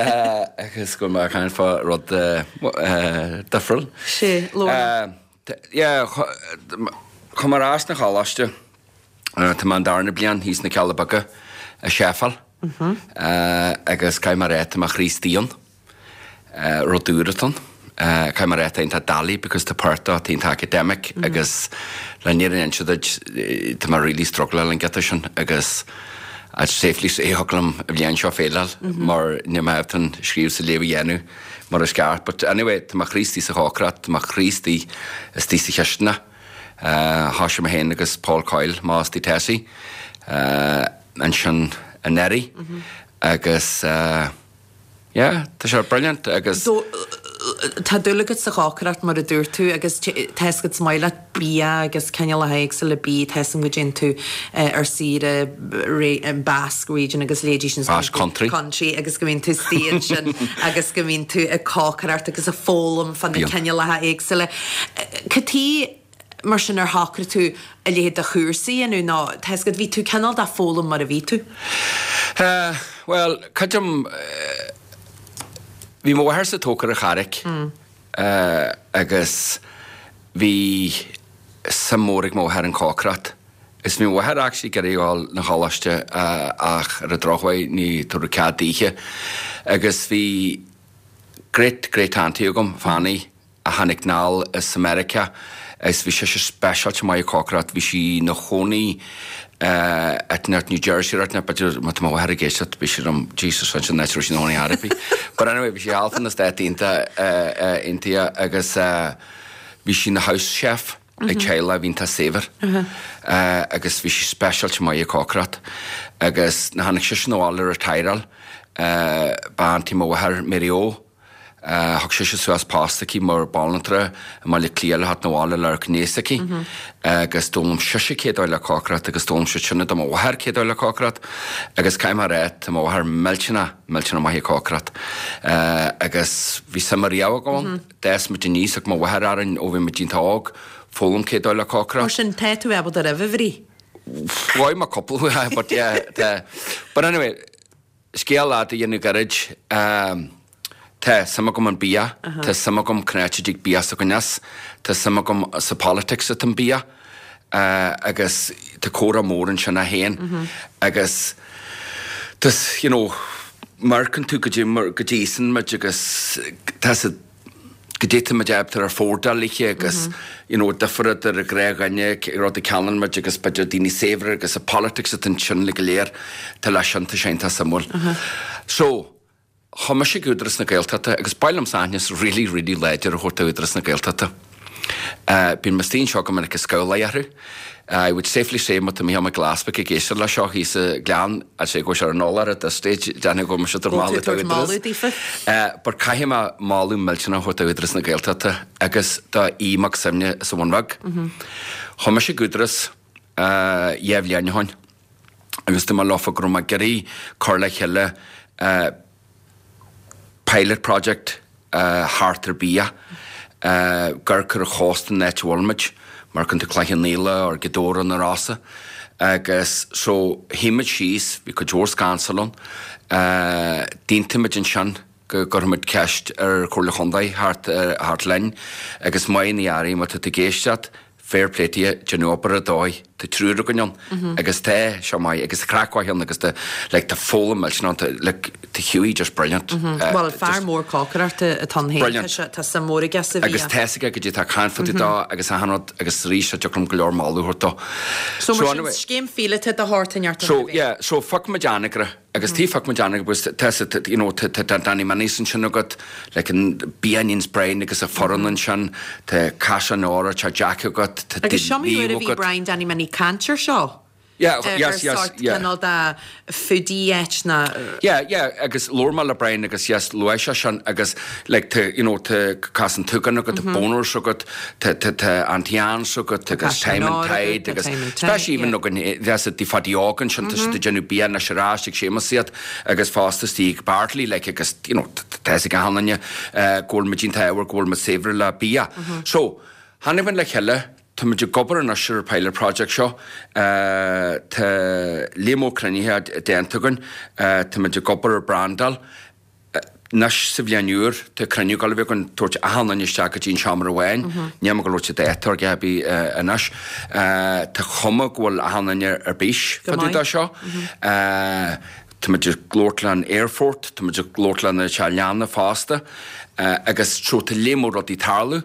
Agus go bhfuil mé ag caint fá rud difriúil. Sea, labhair liom. Yeah, chuaigh mé ar ais 'na choláiste, tá mé an darna bliain thíos na Cealla Beaga i chefáil agus caithfidh mé a rá tá mé chroí istigh ann. Rud úr atá ann. Caithfidh mé a rá tá iontach doiligh because tá páirt de atá iontach academic agus le an fhírinne a inse duit tá mé really struggleáil an giota sin agus I'd safely say thiocfadh liom an bhliain seo faileáil mar níl mé ábalta an scríobh is an léamh a dhéanamh mar is ceart. But anyway tá mo chroí istigh sa chócaireacht, tá mo chroí istigh istigh sa chisteanach. Thoisigh mé féin agus Paul Coyle, m'fhostaí Tessie, ansin anuraidh agus Yeah, tá sé brilliant agus. Tá dúil agat sa chócaireacht mar a dúirt tú agus tá fhios agat is maith leat bia agus cineálacha éagsúla bídh, tá fhios agam go dtéann tú ar saoire Basque region agus leithéidí sin. Basque country. Country agus go mbíonn tú istigh ansin agus go mbíonn tú ag cócaireacht agus ag foghlaim fá na cineálacha éagsúla. Cad chuige mar sin ar shocraigh tú a leithéid de chúrsa a dhéanamh nó tá fhios agat bhí tú cineál de foghlaim mar a bhí tú? Bhuel, creidim, bhí mo mháthairse tógtha ar an Charraic agus bhí suim mór ag mo mháthair an cócaireacht. Is bhí mo mháthair actually ag iarraidh a dhul 'na choláiste ach ar an drochuair ní tabhradh cead daoithe. Agus bhí great great auntie agam, Fanny, a tháinig anall as Meiriceá agus bhí sise speisialta maith ag cócaireacht. Bhí sí 'na chónaí i New Jersey right now, b'fhéidir má tá mo mháthair ag éisteacht beidh sí liom, Jesus ansin an áit a raibh sí 'na chónaí ar bith. But anyway bhí sí thall fá na Stáit Aontaithe agus bhí sí 'na house chef ag teaghlach a bhí iontach saibhir agus bhí sí speisialta maith ag cócaireacht agus nuair a tháinig sise 'na bhaile retireáil ba auntie mo mháthair Mary O. Thug sise suas post aici mar banaltra i mBaile Átha Cliath le theacht 'na bhaile le amharc aníos aici agus d'fhoghlaim sise cé dóigh le cócaireacht agus d'fhoghlaim sí sin do mo mháthair cé dóigh le cócaireacht agus caithfidh mé a rá tá mo mháthair millteanach, millteanach maith ag cócaireacht agus bhí suim ariamh agam ann. D'fhás muid aníos, thug mo mháthair orainn ó bhí muid iontach óg foghlaim cé dóigh le cócaireacht. Mar sin tá tú ábalta roimh a bhrí. Bhuaigh mé cúpla but yeah tá but anyway scéal fhada a dhéanamh gairid tá suim agam an bia, tá suim agam cén áit a dtig bia s'againn as, tá suim agam sa politics atá an bia agus tá comhrá mór ansin é féin agus tá you know amharcann tú go dtí go dtí íosann muid agus tá sa goidé tá muid ábalta ar affórdáil ithe agus you know difear idir an gnáthdhuine rud a cheannaíonn muid agus b'fhéidir daoine saibhre agus an politics atá ansin le go léir tá leis sin tá sé iontach suimiúil. So, chuaigh mise ag Údarás na Gaeltachta agus ba mhaith liomsa aitheantas really really láidir a thabhairt do Údarás na Gaeltachta. Bíonn mé istigh anseo go minic ag scabhláil orthu. I would safely say má tá Mícheál Mac Giolla Easbuig ag éisteacht leis seo thíos sa Ghleann, I'd say go bhfuil sé ar an eolach at this stage, déanfaidh go bhfuil mise ag tabhairt moladh do Údarás. But caithfidh mé moladh millteanach a thabhairt do Údarás na Gaeltachta agus do Aodh Mac Suibhne as an Bhun Bheag. Chuaigh mise ag Údarás dhá bhliain ó shin agus dúirt mé leofa go raibh mé ag iarraidh cur le chéile pilot project thart ar bia, ag amharc ar an chósta an áit a bhfuil muid, mar chun tú Cloich Cheann Fhaola or Gaoth Dobhair na Rosa agus so shuigh muid síos, bhí cuid mhór scansail ann, d'aontaigh muid ansin go gcuirfidh muid ceist ar Chomhairle Chontae theacht theacht linn agus maith na airí má tá tú ag éisteacht, Fair play to you, déanadh obair ar dóigh, tá triúr againn ann agus tá seo maith agus tá craic mhaith ann agus tá like tá foghlaim millteanach ann, tá like tá Hughie just brilliant. Bhuel fear mór cócaireachta atá ann féin, tá sé, tá suim mhór aige sa bhia. Agus tá 'fhios aige goidé tá caint fá dtaobh dó agus achan rud agus arís tá deacair dom go leor moladh a thabhairt dó. So mar sin scéim phíolóta de shórt inteacht So yeah, so phioc muid Anagaire Agus tí phioc muid Anagaire agus tá tá you know tá tá Danny Minnie's ansin agat like an bia a níonns Brian agus a foireann ansin, tá Caisleán Óra, tá Jack agat, tá Agus seo mar uair a bhí Brian Danny Minnie caint ar seo. Yeah, yes, yes, sort yeah. cineál de foodie áit ná. Yeah, yeah, agus labhair mé le Brian agus yes, luaigh sé sin agus like tá you know tá Cas an tSúgáin agat, tá Boners agat, Tá tá Auntie Anne's agat agus Time and Tide agus especially even againn there's a Phaddy Óg ansin tá siad ag déanamh bia anois ar ais ag Séamus iad agus fosta istigh ag Bartley like agus you know tá fhios ag achan duine go bhfuil muid iontach go bhfuil muid saibhir le bia. So tháinig muid le chéile tá muid ag obair anois ar an pilot project seo tá líon mór cruinnithe déanta againn tá muid ag obair ar brandáil Anois sa bhliain úr, tá cruinniú ag dul a bheith againn, tabhairt achan duine isteach go dtí an seomra amháin. Níl mé ag dul labhairt dáta ar dhath ar bith anois. Tá cuma go bhfuil achan duine ar bís fá dtaobh de seo. Tá muid ag labhairt le an aerfort, tá muid ag labhairt le na teach leanna fosta agus so tá léar mór rudaí ag tarlú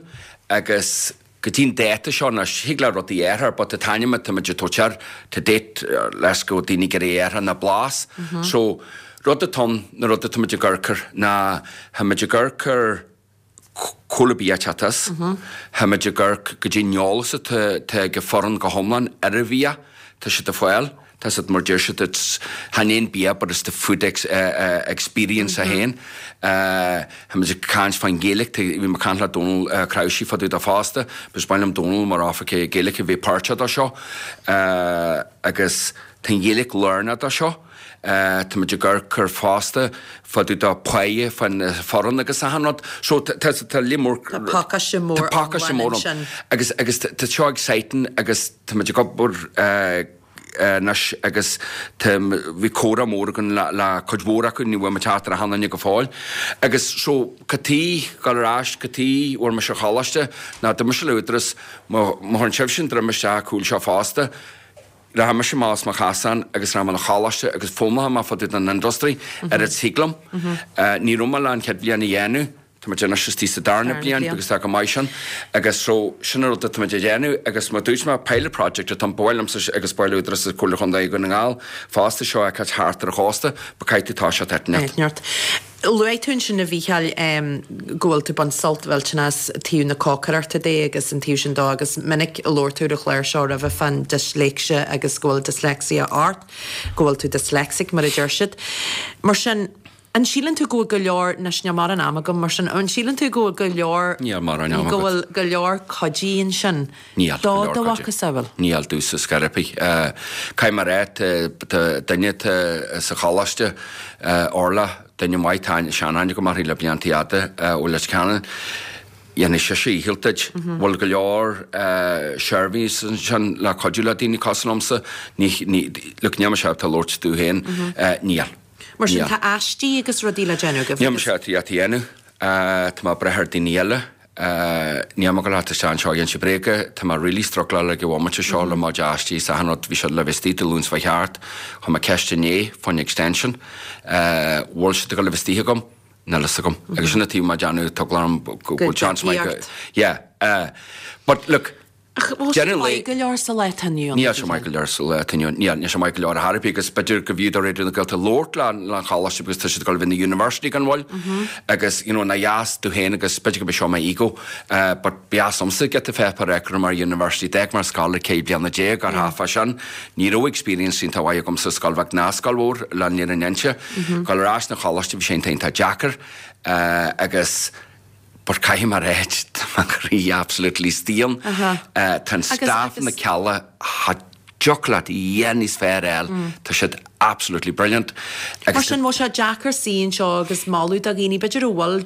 agus go dtí an dáta seo anois, thig le rudaí athrú but an t-ainm atá muid ag tabhairt air to date leis go bhfuil daoine ag iarraidh athrú ná Blas. So, rud atá ann, na rud atá muid ag amharc air ná tá muid ag amharc ar cá bhfuil an bia ag teacht as, tá muid ag amharc goidé an eolas atá ag an foireann go hiomlán ar an bhia, tá siad ag fáil. Tá siad mar deir siad it's chan é an bia but it's the food experience é féin. Tá muid ag caint fán Ghaeilge, tá bhí mé ag caint le Dónal Crawsey fá dtaobh de fosta, because ba mhaith liom Dónal mar oifigeach Gaeilge a bheith páirteach de seo agus tá an Ghaeilge lárnach de seo. Tá muid ag amharc ar fosta fá dtaobh de páighe fán foireann agus achan rud. So tá tá léar mór Tá pacáiste mór Tá pacáiste mór ann. Agus agus tá seo exciting agus tá muid ag obair anois agus tá, bhí comhrá mór againn le, le cuid mhór acu, ní bhfuil muid ag teacht ar achan duine go fóill. Agus so, cad chuige, dul ar ais, cad chuige a bhfuair mise an choláiste, ná d'imigh mise le Údarás, má, má chuireann sibhse an droim isteach an cúl seo fosta, rachaidh mise amach as mo chasán agus rachaidh mé 'na choláiste agus foghlaimeoidh mé fá dtaobh den industry, oiread is thig liom. Ní raibh mé le an chéad bhliain a dhéanamh, Tá muid anois istigh sa darna bliain agus tá go maith sin agus so sin an rud atá muid a dhéanamh agus mar dúirt mé pilot project atá ann ba mhaith liomsa agus ba mhaith le Údarás Comhairle Chontae Dhún na nGall fosta seo a fheiceáil thart ar an chósta but caithfidh tú toiseacht áit inteacht. Luaigh tú ansin a Mhícheáil go bhfuil tú ag baint sult mhillteanach as taobh na cócaireachta de agus an taobh sin dó agus minic a labhair tú ar an chlár seo roimhe fán disléicse agus go bhfuil dyslexia ort, go bhfuil tú dyslexic mar a deir siad. Mar sin. An síleann tú go bhfuil go leor, anois níl mórán ama agam mar sin, an síleann tú go bhfuil go leor, Níl mórán ama go agat. bhfuil go leor cuidí ansin Níl do go leor do cuidí. mhacasamhail? Níl domhsa ar chor ar bith. Caithfidh mé a rá, tá duine atá sa choláiste, Orla, duine maith, tá seanaithne agam uirthi le blianta fhada ó Leitir Ceanainn, dhéanfaidh sise a dhícheall duit. Bhfuil go leor seirbhísí ansin le cuidiú le daoine cosúil liomsa? Ní, ní, look, níl mise ábalta labhairt domh féin, níl. Mar sin, tá aistí agus rudaí le déanamh agaibh Níl agus. mise ábalta iad a dhéanamh. Tá mé ag brath ar daoine eile. Níl mé ag dul a theacht isteach anseo ag inse bréaga. Tá mé really struggláil ag an bhomaite seo le mo chuid aistí is achan rud. Bhí siad le bheith istigh Dé Luain seo thart. Chuir mé ceist inné fán extension. Bhfuil siad ag dul a bheith istigh agam? Níl fhios agam. Agus sin an taobh má déanamh tá eagla orm go bhfuil chance maith go. Yeah. But look, Ach bhfuil sé deireadh an lae. maith go leor sa lá atá inniu ann? Níl sé maith go leor sa lá atá inniu ann. Níl, níl sé maith go leor ar chor ar bith agus b'fhéidir go bhfiú do Raidió na Gaeltachta labhairt le an choláiste because tá siad ag dul a bheith ina university gan mhoill agus you know nár dheas domh féin agus b'fhéidir go b'é seo m'ego but ba dheas liomsa giota pháipéar a fheiceáil mar university. D'fhág mé an scoil ag 14 bliana ar thaifeadh sin. Ní raibh experience iontach mhaith agamsa scoil bheag ná scoil mhór le an fhírinne a inse. Dul ar ais 'na choláiste bhí sé iontach iontach deacair agus but caithfidh mé a rá tá mo chroí absolutely istigh ann. Tá an staff na Cealla cha dtiocfadh leat a dhath níos fearr a fháil, tá siad absolutely brilliant. Mar sin, bhfuil sé deacair suí anseo agus moladh do dhaoine, b'fhéidir a bhfuil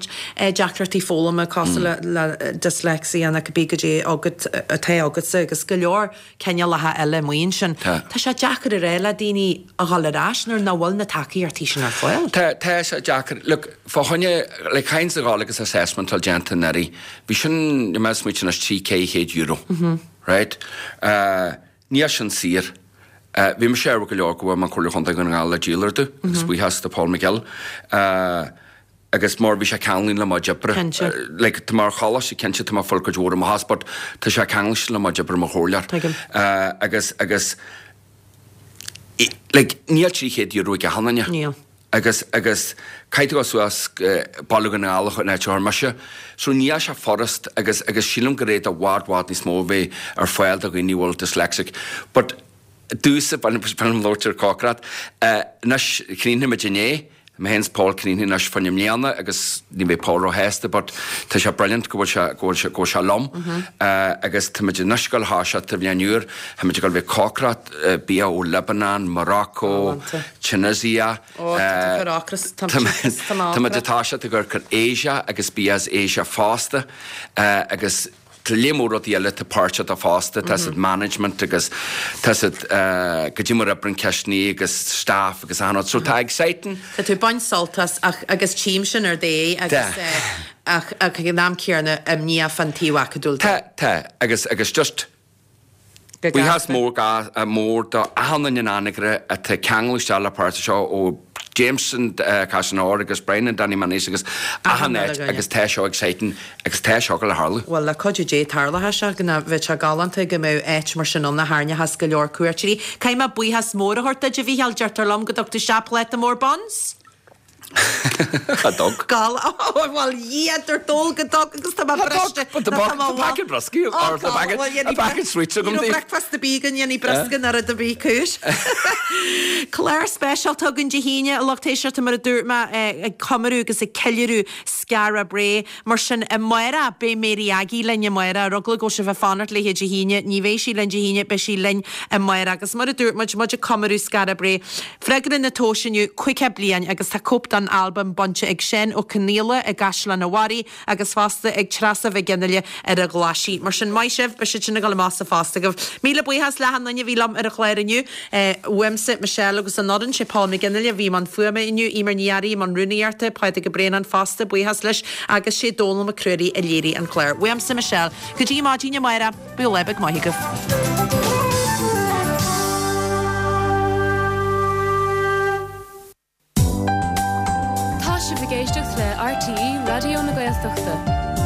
deacrachtaí foghlama cosúil le dyslexia nó cibé goidé agat, atá agatsa agus go leor cineálacha eile amuigh ansin. Tá. Tá sé deacair a rá le daoine a dhul ar ais nuair nach bhfuil na tacaíochtaí sin ar fáil. Tá, tá sé deacair. Look, fá choinne, like, chaithfinnse a ghabháil agus assessment a fháil déanta anuraidh. Bhí sin, níl mé ag smaoitiú anois, €300, €400, right? Níl sin saor. Bhí mise ádhúil go leor go bhfuair mé an Comhairle Chontae Dhún na nGall le díol orthu, agus buíochas do Paul McGill. Agus mar bhí sé ceanglaithe le mo chuid oibre. Cinnte. Like, tá mé ar choláiste, cinnte, tá mé ag fáil cuid mhór amach as, but tá sé ceangailte le mo chuid oibre mar chomhairleoir. Tuigim. Agus, agus, like, níl €300 ag achan duine. Níl. Agus, agus, caithfidh tú dul suas go Baile Dhún na nGall an áit a chuir mise. So níl sé furast agus, agus sílim gur fhéad i bhfad, bhfad níos mó a bheith ar fáil do dhaoine a bhfuil dyslexic. But, domhsa, b'fhéidir liom labhairt ar cócaireacht. Anois, chríochnaigh muid inné, mé féin is Paul críochnaithe anois fá choinne i mbliana agus ní bheidh Paul róshásta but tá sé brilliant go bhfuil sé, go bhfuil sé, go bhfuil sé liom agus tá muid anois ag dul a thoiseacht sa bhliain úr, tá muid ag dul a bheith ag cócaireacht bia ó Lebanon, Morocco, Tunisia, tá muid ag toiseacht ag cur Asia agus bia as Asia fosta agus Tá léar mór rudaí eile atá páirteach dó fosta, tá siad management agus tá siad goidé mar oibreann cistiní agus staff agus achan rud. So tá exciting. Tá tú ag baint sult as ach agus tchím sin ar d'aghaidh agus ach ag an am céanna imníoch fán taobh acadúil de. Tá, tá agus agus just Buíochas mór mór do achan duine in Anagaire atá ceangailte isteach le páirt seo ó Jameson, Caisleán Óir agus Brian and Danny Manise agus achan áit agus tá seo exciting agus tá seo ag dul a tharlú. Bhuel, le cuidiú Dé tarlóidh sé go bheadh sé galánta go mbeadh áit mar sin ann a tharraingeochas go leor cuairteoirí. Caithfidh mé buíochas mór a thabhairt duit, a Mhícheáil, deirtear liom go dtug tú isteach pláta mór buns? Cha dtug. Gal, bhuel, Dhia, dúirt dól go dtug agus tá mé briste. Tá packet broscaí or tá packet sweets agam Ní raibh breakfast ar bith againn, dhéanfaí briosca nó rud ar bith cúis. Clár speisialta againn Dé hAoine, a lucht éisteachta, mar a dúirt mé, ag comóradh agus ag ceiliúradh Skara Brae. Mar sin, amárach, beidh Mary Aggie linn amárach. Ar eagla go bhfuil sibh ag fanacht léithe Dé hAoine, ní bheidh sí linn Dé hAoine, beidh sí linn amárach. Agus mar a dúirt muid, muid ag comóradh Skara Brae. Freagra na tomhaise inniu, 50 bliain agus tá cóip den albam bainte ag Seán Ó Conaola i gCaisleán a' Bharraigh agus fosta ag Treasa Mhic Fhionnghaile ar an Ghlaisigh. Mar sin, maith sibh, beidh siad sin ag dul amach sa phost agaibh. Míle buíochas le achan duine a bhí liom ar an chlár inniu. Uaimse, Michelle agus an fhoireann, sé Paul McGinley a bhí i mbun fuaime inniu, Eimear Ní Fhearraigh i mbun rúnaíochta, Pádraig Ó Braonáin fosta, buíochas leis, agus sé Dónal Mac Ruairí a léirigh an clár. Uaimse, Michelle. Go dtí maidin amárach, bíodh lá beag maith agaibh. Tá sibh ag éisteacht le RTÉ Raidió na Gaeltachta.